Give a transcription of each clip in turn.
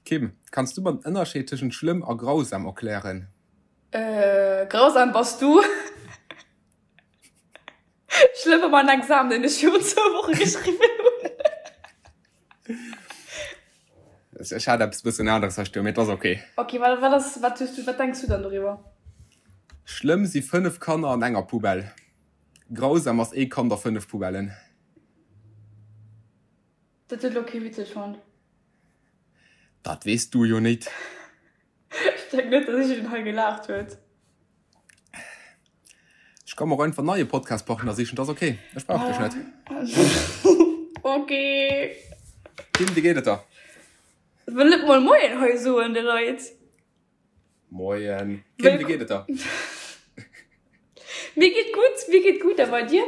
Kim, kanns du mer den Ënnerscheed tëschent schlëmm a grausam erklären? Grausam bass du. Schlëmm war mein Examen, deen ech virun zwou Woche geschriwwen hunn. Ech hat eppes bëssen aneres hei stoen, mee et ass ok. Ok, wat, wat ass, wat hues du, wat denks du dann doriwwer? Schlëmm si 5 Kanner an enger Poubelle. Grausam ass ee Kand a 5 Poubellen. Dat huet elo kee witzeg fonnt. Dat weess du jo nit. Ech denken net, datt iergendeen hei gelaacht huet. Ech ka mer och einfach en neie Podcastpartner sichen, dat ass ok. Ech brauch dech net. Ok. Kim, wéi geet et der? Wëll net mol Moien hei soen de Leit. Moien. Kim, wéi geet et der? Mir geet gutt, mir geet gutt. A bei dir?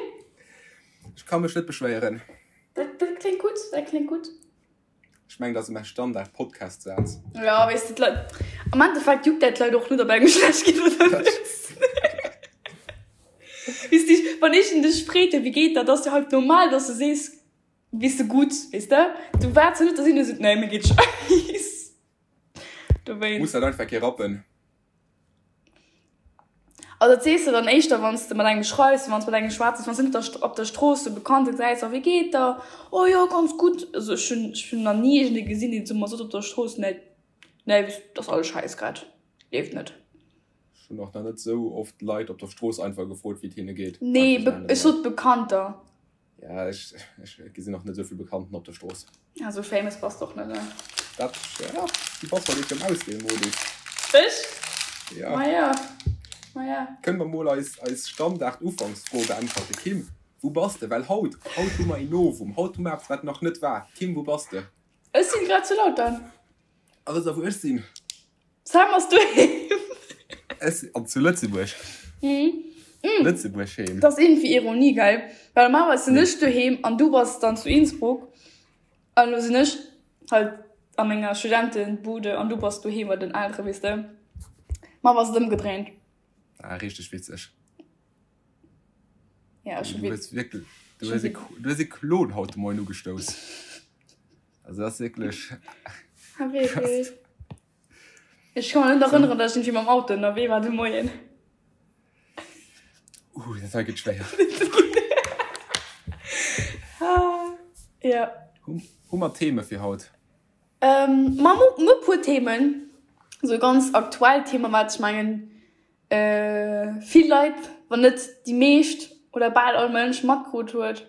Ech ka mech net beschwéieren. Dat, dat kléngt gutt, dat kléngt gutt. Ech mengen, dat ass mäi Standard-Podcast-Saz. Ja, weess de, d'Leit, am Endeffekt juckt dat d'Leit och net, ob engem schlecht geet oder net. Weess de, wann ech dech freet, wéi geet dat, ass jo halt normal, dass du sees, weess de, gutt, weess de. Du waarts jo net, dass een esou seet, nee, mir geet scheiss. Dowéinst. Muss dat einfach kee rappen. Also dat sees de dann éischter wann s de mat engem schreifs, wann s mat engem schwätz, wann s de net op der Strooss e Bekannte gesäis, oh wéi geet der, oh jo ganz gutt. Also ech hunn ech hunn nach ni iergendee gesinn deen zu mer sot op der Strooss, nee nee dat ass alles scheiss grad, leeft net. Ech hunn och nach net esou oft Leit op der Strooss einfach gefrot wéi et hinne geet. Nee ech sot Bekannter. Ja, ech, ech gesinn och net esou vill Bekannten op der Strooss. Ja, sou famous bass de och net, ne? Dat, ja, du bass halt eben am Auswielmodus. Ech? Ja. Ma ja, ma ja. Kënne mer mol eis, eis Standard-Ufanksfro beäntwerte? Kim, wou bass de? Well haut, haut hu mer een Novum, haut hu mer eppes, wat nach net war. Kim, wou bass de? Ech sinn grad zu Lautern. A wëss der, wou ech sinn? Sam ass doheem. Ech an zu Lëtzebuerg. Mhm. Lëtzebuerg heem. Dat ass iergendwéi Ironie, gell? Well normalerweis sinn ech doheem an du bass dann zu Innsbruck. An elo sinn ech halt a menger Studentenbude an du bass doheem bei den Elteren, weess de. Ma ass et ëmgedréint. Ah, richteg witzeg. Ja, ech Du hues wierklech, du hues e, du hues e Klon haut de Moien ugestouss. Also dat ass wierklech. Ah, wierklech? Ech ka mech net erënneren, datt ech iergendwéi mam Auto ënnerwee war de Moien. Uh, dat hei gëtt schwéier. Ja. Hu, hu mer Theme fir haut? Ähm, ma mer hu e puer Themen. Esou ganz aktuell Themen, wat ech mengen, vill Leit, wann net déi meescht oder bal all Mënsch matkrut huet.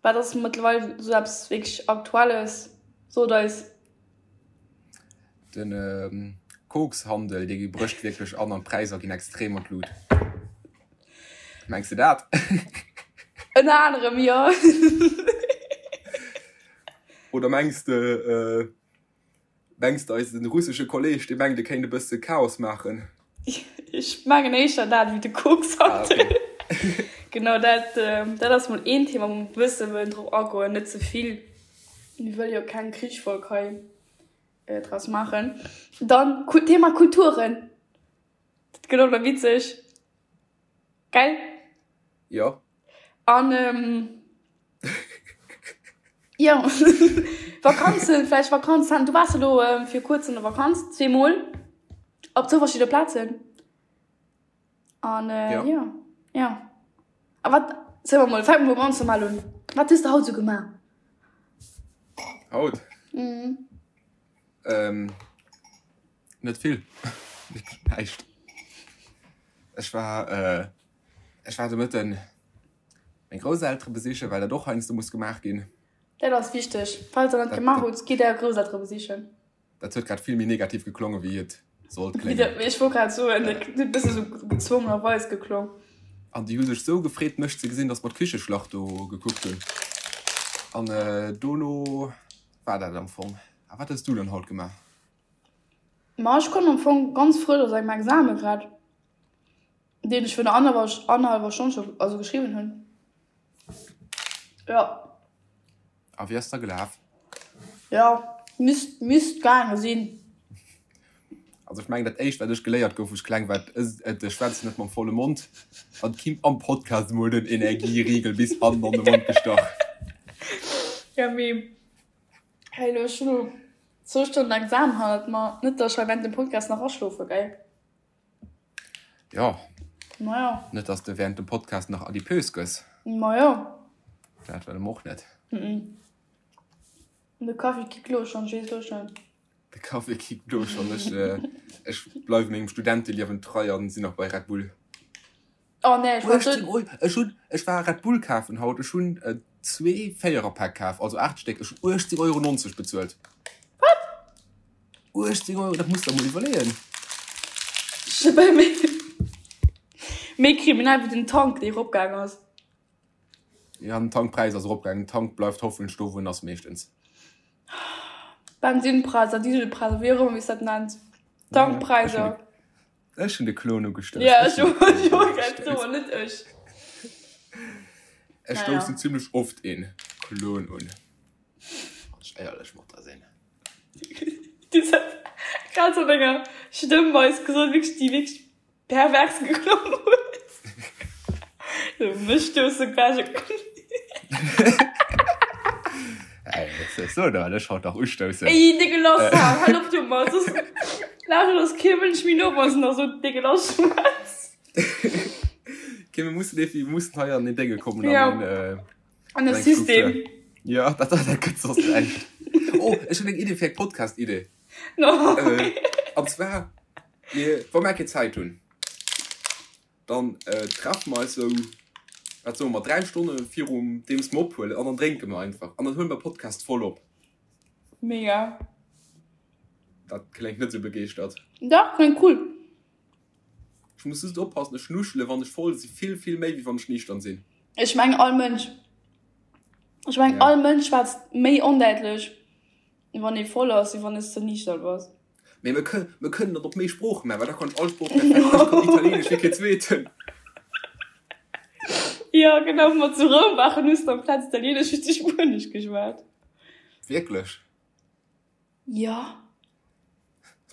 Wat ass mëttlerweil esou eppes wierklech Aktuelles? Sot eis. De Kokshandel, dee brécht wierklech an an d'Präisser ginn extrem an d'Lut. Mengs de dat? Ënner anerem, jo. Oder mengs de, Mengs de eisen russesche Kolleg, dee mengt e kéint e bësse Chaos maachen? Ech mengen éischter dat ewéi de Kokshandel. Ah, okay. Genau, dat, dat ass mol een Thema, wou mer e bësse wëllen drop agoen, net ze vill. Mir wëlle jo keng Krichsfolg hei draus maachen. Dann Thema Kulturen, dat gëtt och nach witzeg. Gell? Jo. An jo, Vakanzen, vläicht Vakanz, du waars elo fir kuerz an der Vakanz, zweemol, op zwou verschidde Plazen. An jo, jo. A wat, soe mer mol, fänke mer mol ganz normal un, Wat hues de haut esou gemaach? Haut? Mhm. Net vill, näischt. Ech war, ech war de Mëtten meng Grousseltere besichen, well dat och heiansdo muss gemaach ginn. Dat ass wichteg. Falls der net gemaach hutt, gitt är Grousseltere besichen. Dat huet grad vill méi negativ geklongen, wéi et sollt kléngen. Ech wollt grad soen, dat huet e bësse sou gezwongenerweis geklong. An déi hu sech sou gefreet, mech ze gesinn, datt mer d'Kicheschlacht do gekuckt hunn. An dono war dat am Fong. A wat hues du dann haut gemaach? Ma ech komm am Fong ganz frësch aus engem Exame grad, deen ech virun annerhallwer Stonn scho also geschriwwen hunn. Jo. A wéi ass da gelaf? Jo, misst misst gaange sinn. Also ech mengen dat éischt wat ech geléiert gouf wou ech kleng war, et schwätz net mam volle Mond an d'Kim am Podcast emol den Energieriegel bis hannen an de Mond gestach. Ja mee hey lo ech hunn. Zwou Stonnen Examen hannert mer. Net dass ech hei während dem Podcast nach aschlofe gell? Jo. Majo. Net dass de während dem Podcast nach adipös gëss. Majo. Dat wëlle mer och net. Mhm. De Kaffi kickt lo schonn, ech weess lo schonn. De Kaffi kickt lo schonn. Ech, ech bleiwe mengem Studenteliewen trei an sinn nach bei Red Bull. Oh nee, ech war 18 Euro, ech hunn, ech war Red Bull kafen haut, ech hunn zwee Véiererpäck kaf, also 8 Stéck, ech hunn 18,90 Euro bezuelt. Wat? 18 Euro, dat muss der mol iwwerleeën. Méi, méi kriminell wéi den Tank, dee eropgaang ass. Ja, den Tankpräis ass eropgaangen, den Tank bleift hoffentlech do wou en ass meeschtens. Bensinpräisser, Dieselpräisser, wéi och ëmmer wéi s dat nenns. Tankpräisser. Ech hunn de Klon ugestouss. Ja, ech och, ech och, grad soen, net ech. Ech stoussen zimlech oft een Klon un, wann ech éierlech mat der sinn. Du hues dat grad sou an enger Stëmmweis gesot, wierklech, déi wierklech pervers geklongen huet. Sou, mech stousse quasi e Klon. Ey, was soll da ech haut nach ustoussen? Ey, décke Lass, hal op domat, soss lauschtert eis kee Mënsch méi no, wann s de nach sou décke Lass schwätz. Okay, mir mussen irgendwie, mir mussen hei an den Dénge kommen, an Ja. den, äh, An de System. Ja, dat, dat, dat gëtt soss näischt. Oh, ech hunn eng Idee fir eng Podcast-Idee. No. Äh, an zwar, mir, wa mer keng Zäit hunn, Dann treffe mer eis sou, wat soe mer, 3 Stonne virum deems mer ophuelen an dann drénke mer einfach an dann huele mer Podcast voll op. Mega. Dat kléngt net sou begeeschtert. Dach, kléngt cool. Ech muss just oppassen, ech nuschele wann ech voll si vill, vill méi wéi wann ech niichtern sinn. Ech mengen all Mënsch. Ech mengen all Mënsch schwätzt méi ondäitlech wann ee voll ass, wéi wann s de niichtern bass. Mee mir kënnen, mir kënnen dat op méi Sprooche maachen, well da kann ech all Sprooch perfekt. Ech kann Italieenesch wéi keen Zweeten. Jo, genau, wou mer zu Roum waren, hues de amplaz Italieenesch hues de Spuenesch geschwat. Wierklech? Jo.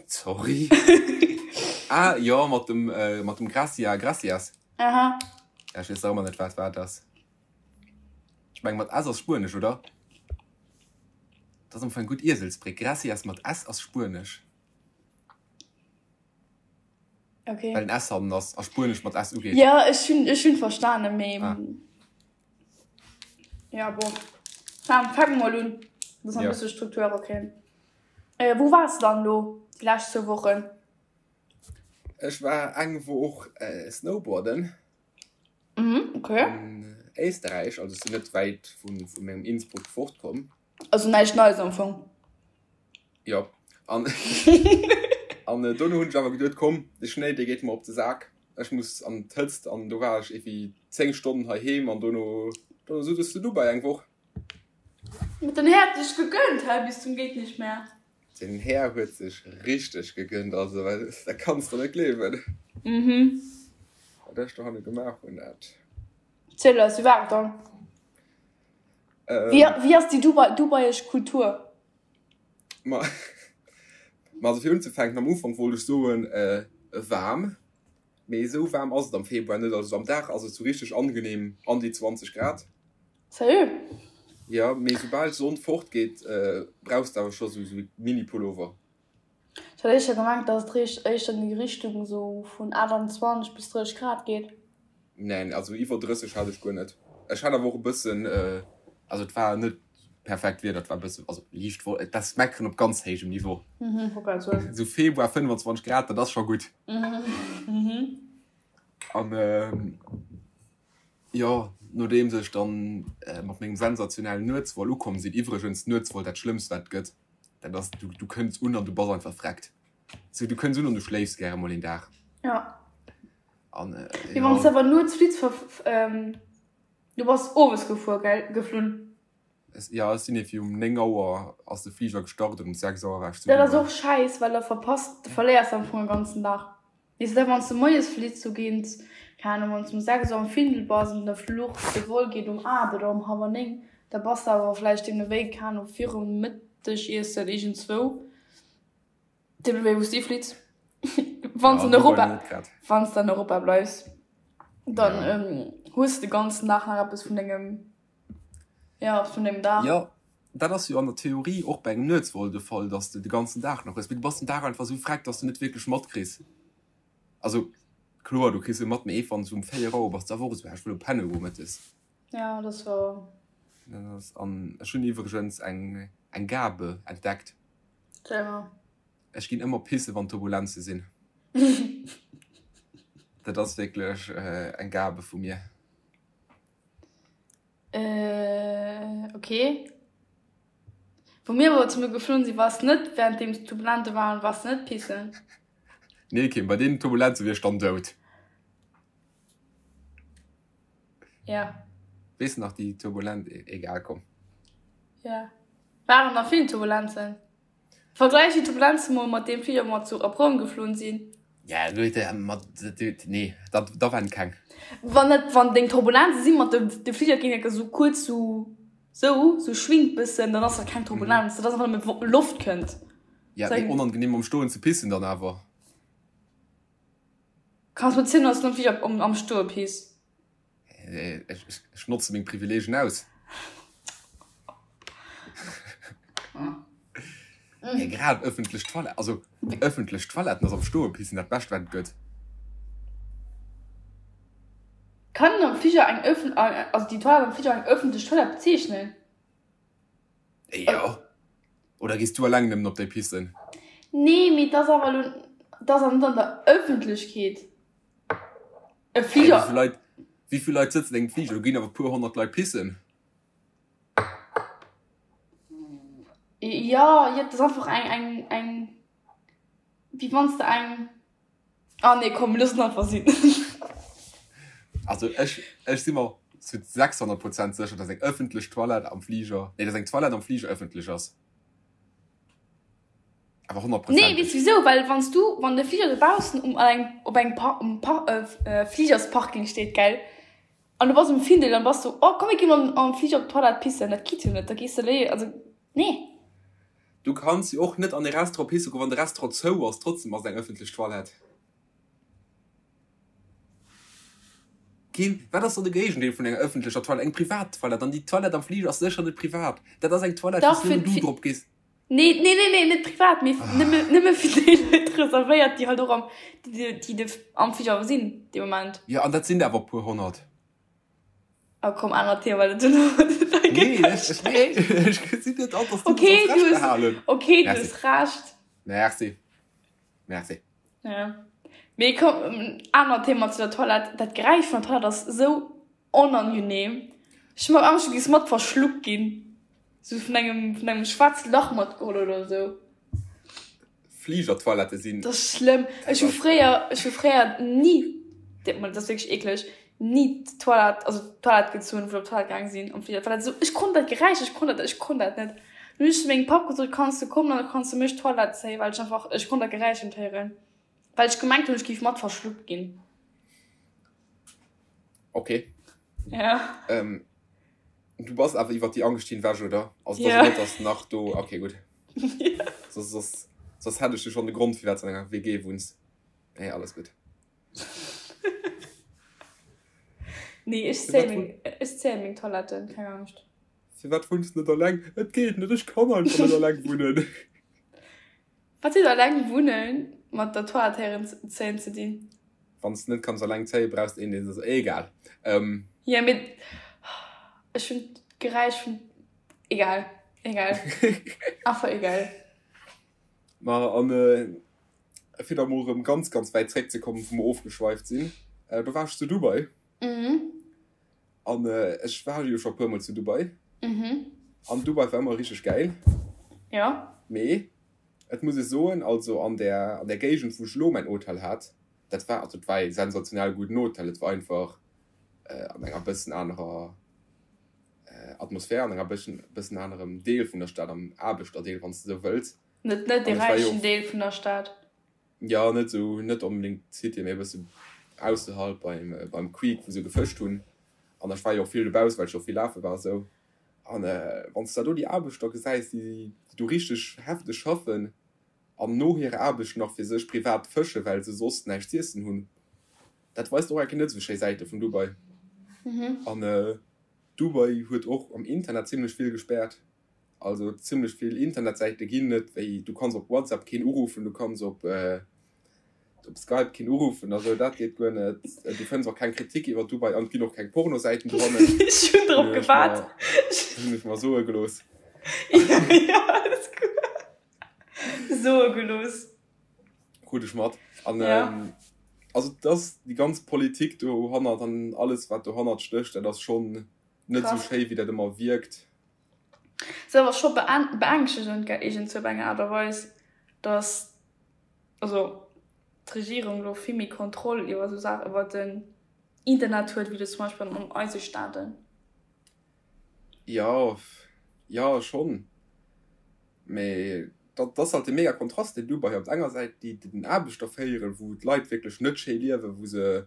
Sorry. Ah, jo, mat dem, mat dem Gracia, Gracias. Aha. Ja, ech weess nach ëmmer net, wat wat ass. Ech meng, mat S ass Spuenesch, oder? Dat ass am Fong eng gutt Ieselsbréck. Gracias mat S ass Spuenesch. Okay. Well en S hannen ass a Spuenesch mat S ugeet. Ja, ech hunn, ech hunn verstanen, mee. Ah. Ja, bon. Fang, fang mol un, dass mer e Ja. bësse Struktur erakréien. Äh, wou waars de dann elo déi lescht zwou Wochen? Ech war eng Woch snowboarden. Mhm, okay. An Éisterräich, also ech sinn net wäit vu mengem Innsbruck fortkomm. Also näischt Neies am Fong. Jo, an an dono hunn ech awer geduet, komm, de Schnéi dee geet mer op de Sak, ech muss an d'Hëtzt an do war ech iergendwéi 10 Stonnen heiheem an dono dono sot ech zu Dubai eng Woch. Huet den Här sech gegönnt hei bis zum geht nicht mehr. Den Här huet sech richteg gegönnt, also dat kanns de net gleewen. Mhm. Wat ech dohanne gemaach hunn, dat. Ziel eis, wéi war et dann? Wéi, wéi ass déi Dubai, dubaiesch Kultur? Ma, ma also fir unzefänken, am Ufank wollt ech soen, waarm, mee esou waarm ass et am Februar net. Also am Dag ass et sou richteg angenehm, an déi 20 Grad. Sérieux? Jo, mee soubal d'Sonn fort geet, brauchs de awer scho sou e Mini-Pullover. Ech hat éischter gemengt, dass et richt éischter an déi Richtung esou vun 28 bis 30 Grad geet. Neen, also iwwer 30 hat ech guer net. Ech hat awer och e bëssen, also et war net perfekt Wieder, et war e bëssen, also liicht, dat ass meckeren op ganz héijem Niveau. Mhm, wollt grad soen. Esou Februar 25 Grad, dat ass scho gutt. Mhm. An jo, nodeems ech dann mat mengem sensationellen Nuetsvol ukomm sinn, iwwregens Nuetsvol dat schlëmmst wat et gëtt, dat ass du du kënns un an du bass einfach vreckt. Sou du kënns un an du schléifs gäre mol een Dag. Ja. An Mee wann s de awer nuets flitt, du bass owes gefuer, gell, geflunn? Jo, ech sinn iergendwéi um 9 Auer ass de Fliger gestart an um 6 Auer war ech zu Dat ass Dubai. och schäiss, well da verpasst, du verléiers am Fong e ganzen Dag. Weess de, wann s de moies flitt, sou géint, keng Ahnung, wann s de um 6 Auer um Findel bass an de Fluch, de Vol geet um 8 oder um hallwer 9, da bass de awer vläicht deemno wéi, keng Ahnung, virum Mëttegiessen iergendzwou, deemno wéi wou s de flitts. Wann s Ja, an Dubai Europa, net grad. wann s de an Europa bleifs, dann Ja. hues de de ganzen Dag nach eppes vun dengem. Ja, vun dem Dag. Jo. dat ass jo an der Theorie och bei engem Nuetsvol de Fall, dass de de ganzen Dag nach hues, mee du bass den Dag einfach esou freck, dass de net wierklech matkriss. Also kloer, du kriss e mat, mee wann s du um 4 Auer bass, da wor esou, ah, ech wëll elo penne goen mëttes. Ja, dat ass wouer. Dat ass, an ech hunn iwwregens eng, eng Gabe entdeckt. Ziel mer. Ech ginn ëmmer pisse wann Turbulenze sinn. Dat ass wierklech eng Gabe vu mir. Äh, okay. Wou mir awer zesumme geflunn sinn, wars net währenddeems d'Turbulente waren, wars de net pissen? Nee Kim, bei deenen Turbulenze wier ech dann dout. Ja. Weess de nach déi Turbulent, egal komm. Ja. Waren nach vill Turbulenzen. Vergläich déi Turbulenzen mol mat deem Fliger wou mer zu op Roum geflunn sinn. Ja gutt, mat nee da da waren keng. Wann net wann deng Turbulenze sinn mat de de Fliger géing enke sou kuerz sou sou sou schwingt bëssen, dann ass dat keng Turbulenz, dat ass einfach nëmme Loft kënnt. Ja mee onangenehm am Stoen ze pissen dann awer. Kanns mer zielen dass du am Fliger am Stoe piss? Ech notze meng Privileegien aus. Hey, grad ëffentlech Toilette, also ëffentlech Toiletten ass am Stoe pissen dat Bescht wat et gëtt. Kann een am Fliger eng ëffen, also déi Toilette am Fliger eng ëffentlech Toilette bezeechnen? Jo. Oder gees du eleng nëmmen op déi pissen? Nee, mee et ass awer elo, et ass awer net an der Ëffentlechkeet. E Fliger. Wéi vill Leit, wéi vill Leit sëtzen engem Fliger? Do ginn awer e puer 100 Leit pissen. Jo, jo, et ass einfach eng, eng, eng, wéi wann s de eng, ah nee, komm, mir loossen et einfach sinn. Also ech, ech si mer zu 600 Prozent sécher, dass eng ëffentlech Toilette am Fliger, nee, dass eng Toilette am Fliger ëffentlech ass. Awer honnertprozenteg. Nee, weess wisou? Well wann s du, wann de Fliger dobaussen um an engem, op engem Par, um Par, Fligersparking steet, gell, an du bass um Findel, dann bass du, oh komm mir gi mol am Fliger op d'Toilette pissen, dat geet jo net, da gees de léi, also nee. Du kanns jo och net an e Restaurant pisse goen, wann de Restaurant zou ass, trotzdem ass et eng ëffentlech Toilette. Kim, wat ass dann de Géigendeel vun enger ëffentlecher Toilette? Eng privat Toilette. An déi Toilette am Fliger ass sécher net privat. Dat ass eng Toilette, wou s nëmmen du drop gees. Nee, nee, nee, nee, net privat, mee nëmme, nëmme fir déi Leit reservéiert, déi halt och am, déi, déi de, am Fliger sinn dee Moment. Jo, an dat sinn der awer e puer 100. Ah komm, anert Thema, well dat duerno, da gëtt Nee, ech, ech, nee, ech gesinn net an, dass du Okay, du hues Recht behalen. Okay, du hues Recht. Merci. Merci. Ja. Mee komm, anert Thema zu der Toilette, dat Geräisch vun der Toilette ass esou Onangenehm. Ech hu mer Angscht du giss mat verschluckt ginn. Sou vun engem vun engem schwaarze Lach matgeholl oder sou. Fligertoilette sinn. Dat ass schlëmm. Ech hu fréier ech hu fréier ni, dat ass wierklech eekleg, ni d'Toilette also d'Toilette gezunn wou ech op d'Toilette gaang sinn am Fliger well dat esou ech konnt dat Geräisch ech konnt dat ech konnt dat net. Dunn hunn ech zu mengem Papp gesot kanns du kommen an da kanns du mech d'Toilette zéien well ech einfach ech konnt dat Geräisch net héieren well ech gemengt hunn ech géif mat verschluckt ginn. Okay. Ja. Ähm, du bass awer iwwer déi Angscht hinwech, oder? Also, ja. net, dass nach do. Okay, gutt. Ja. Soss, soss, soss hätt ech jo schon de Grond, firwat du an enger WG wunns. Nee, alles gutt. Nee, ech zéie meng, ech zéie meng Toiletten, keng Angscht. Firwat wunns du net alleng? Et geet net, ech kann einfach net alleng wunnen. Wat huet alleng wunnen mat der Toilette héieren zéien ze dinn? Wann s de net kanns alleng zéien, brauchs de een deen se. Egal. Jo mee ech hunn d'Geräisch vun. Egal, egal, einfach egal. Ma an fir da mol erëm ganz ganz wäit zréck ze kommen, wou mer ofgeschweift sinn, do war ech zu Dubai. An ech war jo scho puer mol zu Dubai. An Dubai war ëmmer richteg gäil. Jo. Mee et muss ech soen, also an där an där Géigend wou ech elo mäin Hotel hat, dat war also et war ee sensationell gudden Hotel, et war einfach an enger bëssen anerer Atmosphär, an enger bëssen bëssen anerem Deel vun der Stad, am Aarbechterdeel wann s de esou wëlls. Net net dee räichen Deel vun der Stad. Jo, net esou, net onbedéngt d'City, mee e bësse ausserhalb beim, beim Creek, wou se gefëscht hunn. An ech war jo och vill dobausse, well ech jo och vill lafe war esou. An wann s de da do déi Aarbechter gesäis, déi do richteg hefteg schaffen an no hirer Aarbecht nach fir sech privat fëschen, well se soss näischt z'iessen hunn, dat weist och eng Kéier net esou schéi Säite vun Dubai. An Dubai huet och am Internet zimlech vill gespäert. Also zimlech vill Internetsäite ginn net, wéi du kanns op WhatsApp keen uruffen, du kanns op op Skype keen uruffen, also dat geet guer net. Du fënns och keng Kritik iwwer Dubai an et ginn och keng Pornosäiten dohannen. Ech hunn drop gewaart. Hunn ech mer soe gelooss. Jo, alles gutt. Soe gelooss. Krut ech mat. An also et ass déi ganz Politik dohannert an alles wat dohannert stécht, dat ass schonn net esou schéi wéi dat ëmmer wierkt. Ass awer scho beängschtegend gell, iergendzwou op eng Aart a Weis, datt also d'Regierung elo vill méi Kontroll iwwer esou Saachen, iwwer den Internet huet, wéi elo zum Beispill an eise Staaten. Jo, jo schonn, mee dat ass halt de mega Kontrast deen Dubai op der enger Säit déi den Aarbechter féieren, wou d'Leit wierklech net schéi liewen, wou se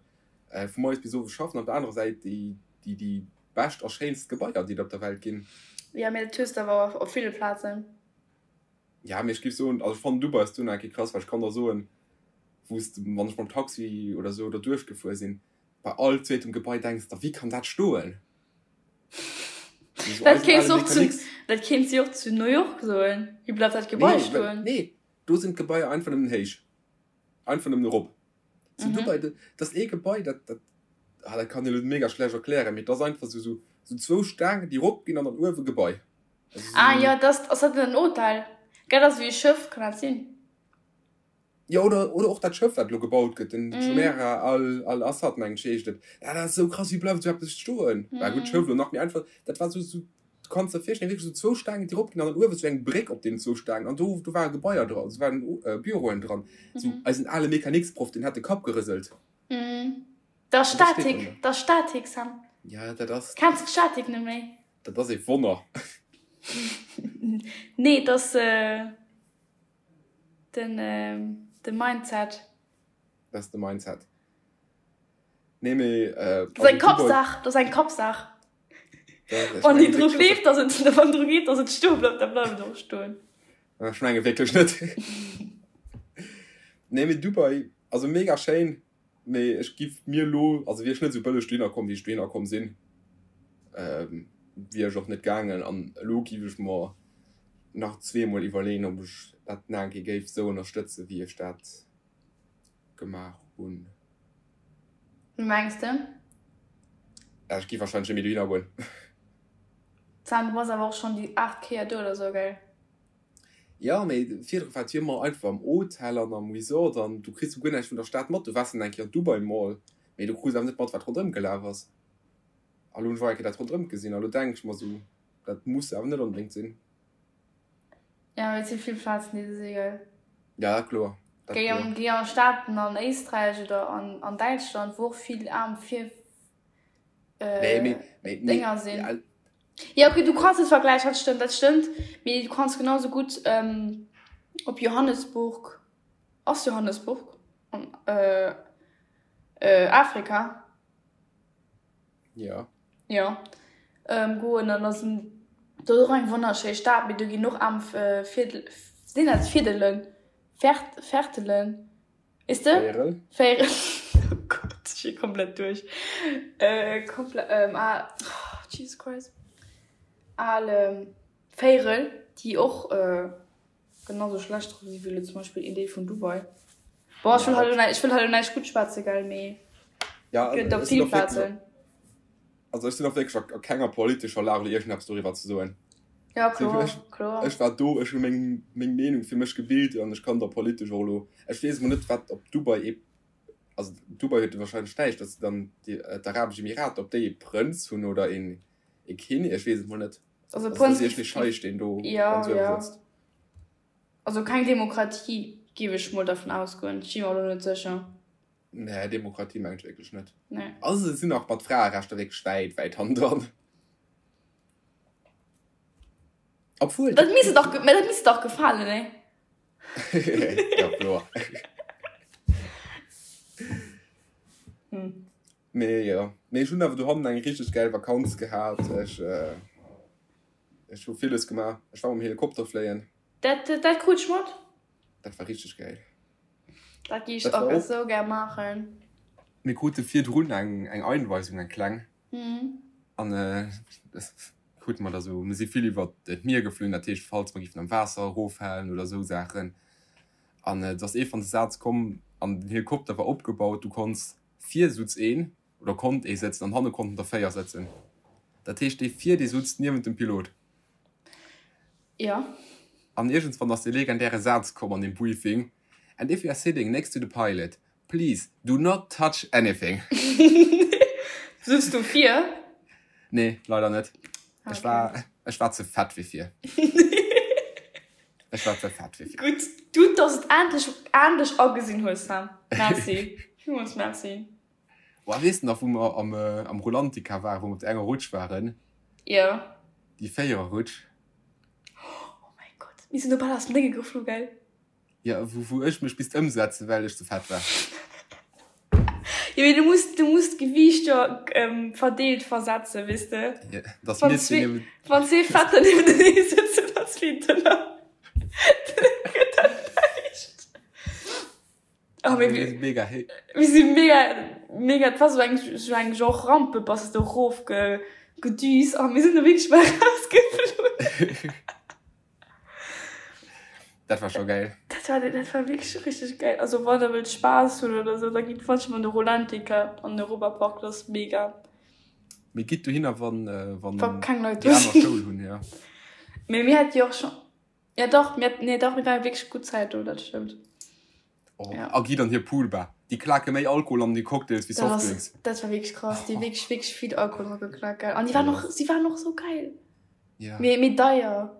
vu moies bis owes schaffen, op der anerer Säit déi déi bescht a schéinst Gebaier, déi et op der Welt ginn. Jo, mee dat hues de awer op ville Plazen. Ja, mee ech géif soen, also ech fannen Dubai ass do nach eng Kéier krass, well ech kann der soen, wou s de, wann ech mam Taxi oder esou derduerch gefuer sinn, bei all zweetem Gebai denks der, wéi kann dat stoen? Dat kéints de och zu, dat kéints de och zu New York soen, wéi bleift dat Gebai stoen? Nee, do sinn d'Gebaier einfach nëmmen héich. Einfach nëmmen erop. Zu Dubai, dat ass ee Gebai, dat, dat, ah, dat kann een elo mega schlecht erklären, mee et ass einfach esou, esou, esou zwou Staangen, déi erop ginn an dann uewe Gebai. Also esou. Ah jo, dat ass, ass dat en Hotel? Gell, dat ass ewéi e Schëff, kann dat sinn? Jo, oder, oder och dat Schëff, wat elo gebaut gëtt, den Jumeirah Al, Al Assad, mengen ech, heescht et. Dat ass esou krass, wéi bleift esou eppes stoen? Bah gutt, Schëff elo nach méi einfach, dat war esou, esou, Du kanns der virstellen, wierklech esou zwou Staangen, déi eropginn an dann uewe sou eng Bréck op deenen zwou Staangen an do, do ware Gebaier dran, do waren Büroen dran. Sou eisen ale Mecaniksproff, deen hat de Kapp gerëselt. Dat ass Statik, dat ass Statik, Sam. Ja, dat ass. Kenns de d'Statik net méi? Dat ass ee Wonner. Nee, dat ass den, de Mindset. Dat ass de Mindset. Nee, mee. Dat ass eng Kappsaach, dat ass eng Kappsaach. Wann déi dru gleeft, dass et, wann dru geet, dass et stoe bleift, da bleift et och stoen. Ech menge wierklech net. Nee, mee Dubai, also mega schéin, mee ech giff mir elo, also wier ech net esou bëlleg dohinner komm, wéi ech dohinner komm sinn, wier ech och net gaangen. An elo giff ech mer nach zweemol iwwerleeën, ob ech dat nach eng Kéier géif esou ënnerstëtzen, wéi ech dat gemaach hunn. Wéi mengs de? Ja, ech gi wahrscheinlech net méi dohinner goen. Sam, du bass awer och schonn déi 8 Kéier do oder sou, gell? Ja, mee virdru war et jo ëmmer einfach am Hotel an am Resort an du kriss jo guer näischt vun der Stad mat. Du waars dann eng Kéier an Dubai Mall, mee du krus awer net mat, wat ronderëm gelaf ass. A lo hunn ech och eng Kéier dat ronderëm gesinn a lo denk ech mer sou, dat muss awer net onbedéngt sinn. Ja, mee et si vill Plazen, déi se si, gell? Ja, kloer. Dat Géi an, géi an Staaten an Éisträich oder an, an Däitschland, wou och vill aarm Vir, Nee, mee, mee, mee, Dénger sinn. Ja, ja, okay, du kanns net vergläichen, dat stëmmt, dat stëmmt. Mee du kanns genau sou gutt ähm, op Johannesburg, ass Johannesburg an äh, äh, Afrika? Ja. Jo. Ähm, goen an ass do och eng wonnerschéi Stad, mee do ginn och aarm Virdel, sinn dat Virdelen? Vert, Vertelen, weess de? Véierel. Véierel, oh Gott, ech si komplett duerch. Äh, komplett, ähm, ah, oh, Jesus Christ. Al Véierel, déi och, äh, Genau sou schlecht drop si wéi elo zum Beispill een Deel vun Dubai. Bon, ech wëll hei elo ech wëll hei elo näischt gutt schwätzen, gell, mee Ja, et gëtt op ech sinn vill och wierklech, Plazen. also ech sinn och wierklech a kenger politescher Lag elo iergendeppes doriwwer ze soen. Ja, kloer, Ech, kloer. ech war do, ech hu meng, meng Meenung fir mech gebilt an ech kann der politesch och elo, ech weess emol net wat op Dubai ee, also Dubai huet wahrscheinlech näischt, datt se dann déi, d'Arabesch Emirater, ob déi ee Prënz hunn oder een, ee Kinnek, ech weess et mol net. Also Also dat Prënz ass iergendee Scheich, deen do ja, ganz uewe ja. sëtzt. Also keng Demokratie, géif ech mol dervun ausgoen. Ech si mer elo net sécher. Nee, Demokratie mengen ech wierklech net. Nee. Also se sinn nach mat Fraerechter wierklech wäit, wäit hannendran. Obwuel. Dat misst dach, mä dat misst dach gefalen, nee? Ja, kloer. Hm. Mee jo, mee ech hunn awer dohannen eng richteg gäil Vakanz gehat. Ech ech hu villes gemaach. Ech war mam Helikopter fléien. Dat dat krut ech mat. Dat war richteg gäil. Dat géif ech och esou gär maachen. Mir krute virdrun eng eng Einweisung, eng kleng. An. Krute mer da sou, mir si vill iwwer d'Mier geflunn, dat heescht falls mer giffen am Waasser eroffalen oder sou Saachen. An et ass ee van de Saz komm an den Helikopter war opgebaut, du konns vir sutz een oder konnt ee sëtzen an hanne konnten der 4 sëtzen. Dat heescht dee vir dee sutz niewent dem Pilot. Jo. An iergendswann ass dee legendäre Saz komm an deem Briefing, And if you are sitting next to the pilot, please do not touch anything. Sutz du vir? Nee, leider net. Ech war, ech war ze fett fir vir. Ech war ze fett fir vir. Gutt, gutt, dass et endlech, endlech agesinn hues, Sam. Merci. Villmools Merci. Boah, weess de nach, wou mer am, am Rulantica waren, wou mer op där enger Rutsch waren? Jo. Déi Véiererrutsch. Oh mäi Gott, mir sinn do bal aus dem Dénge geflu, gell? Jo, wou, wou ech mech misst ëmsetzen, well ech ze fett war. Jo, mee du muss, du muss d'Gewiicht jo verdeelt versetzen, weess de? Jo, dass mir zwee niewent. Wann zwee Fetter niewentenee sëtzen an zwee Dënner, dann gëtt dat näischt. Oh, mir, mir si mega héi. Mir si mega, mega, et war sou eng, sou eng Genre Rampe, bass de erof ge, gedüst a mir sinn do wierklech bal rausgeflunn. Dat war scho geil. Dat war, dat war wierklech richteg geil. Also wann der wëllt Spaass hunn oder sou, da gitt manchmal an de Rulantica an den Europapark, dat ass mega. Mee gitt dohinner, wann, wann Wa keng Leit do déi aner sinn. Schoul hunn, jo. Mee mir hate jo och scho, ja dach, mir, nee dach, mir ware wierklech gutt Zäit do, dat stëmmt. Oh, Ja. a gitt an hir Poolbar. Déi klake méi Alkohol an déi Cocktails wéi Dat ass, Softdrinks. dat war wierklech krass. Déi wierklech, wierklech vill Alkohol dra geklakt, gell. An déi waren och, si waren och sou geil. Ja. Mee, mee deier.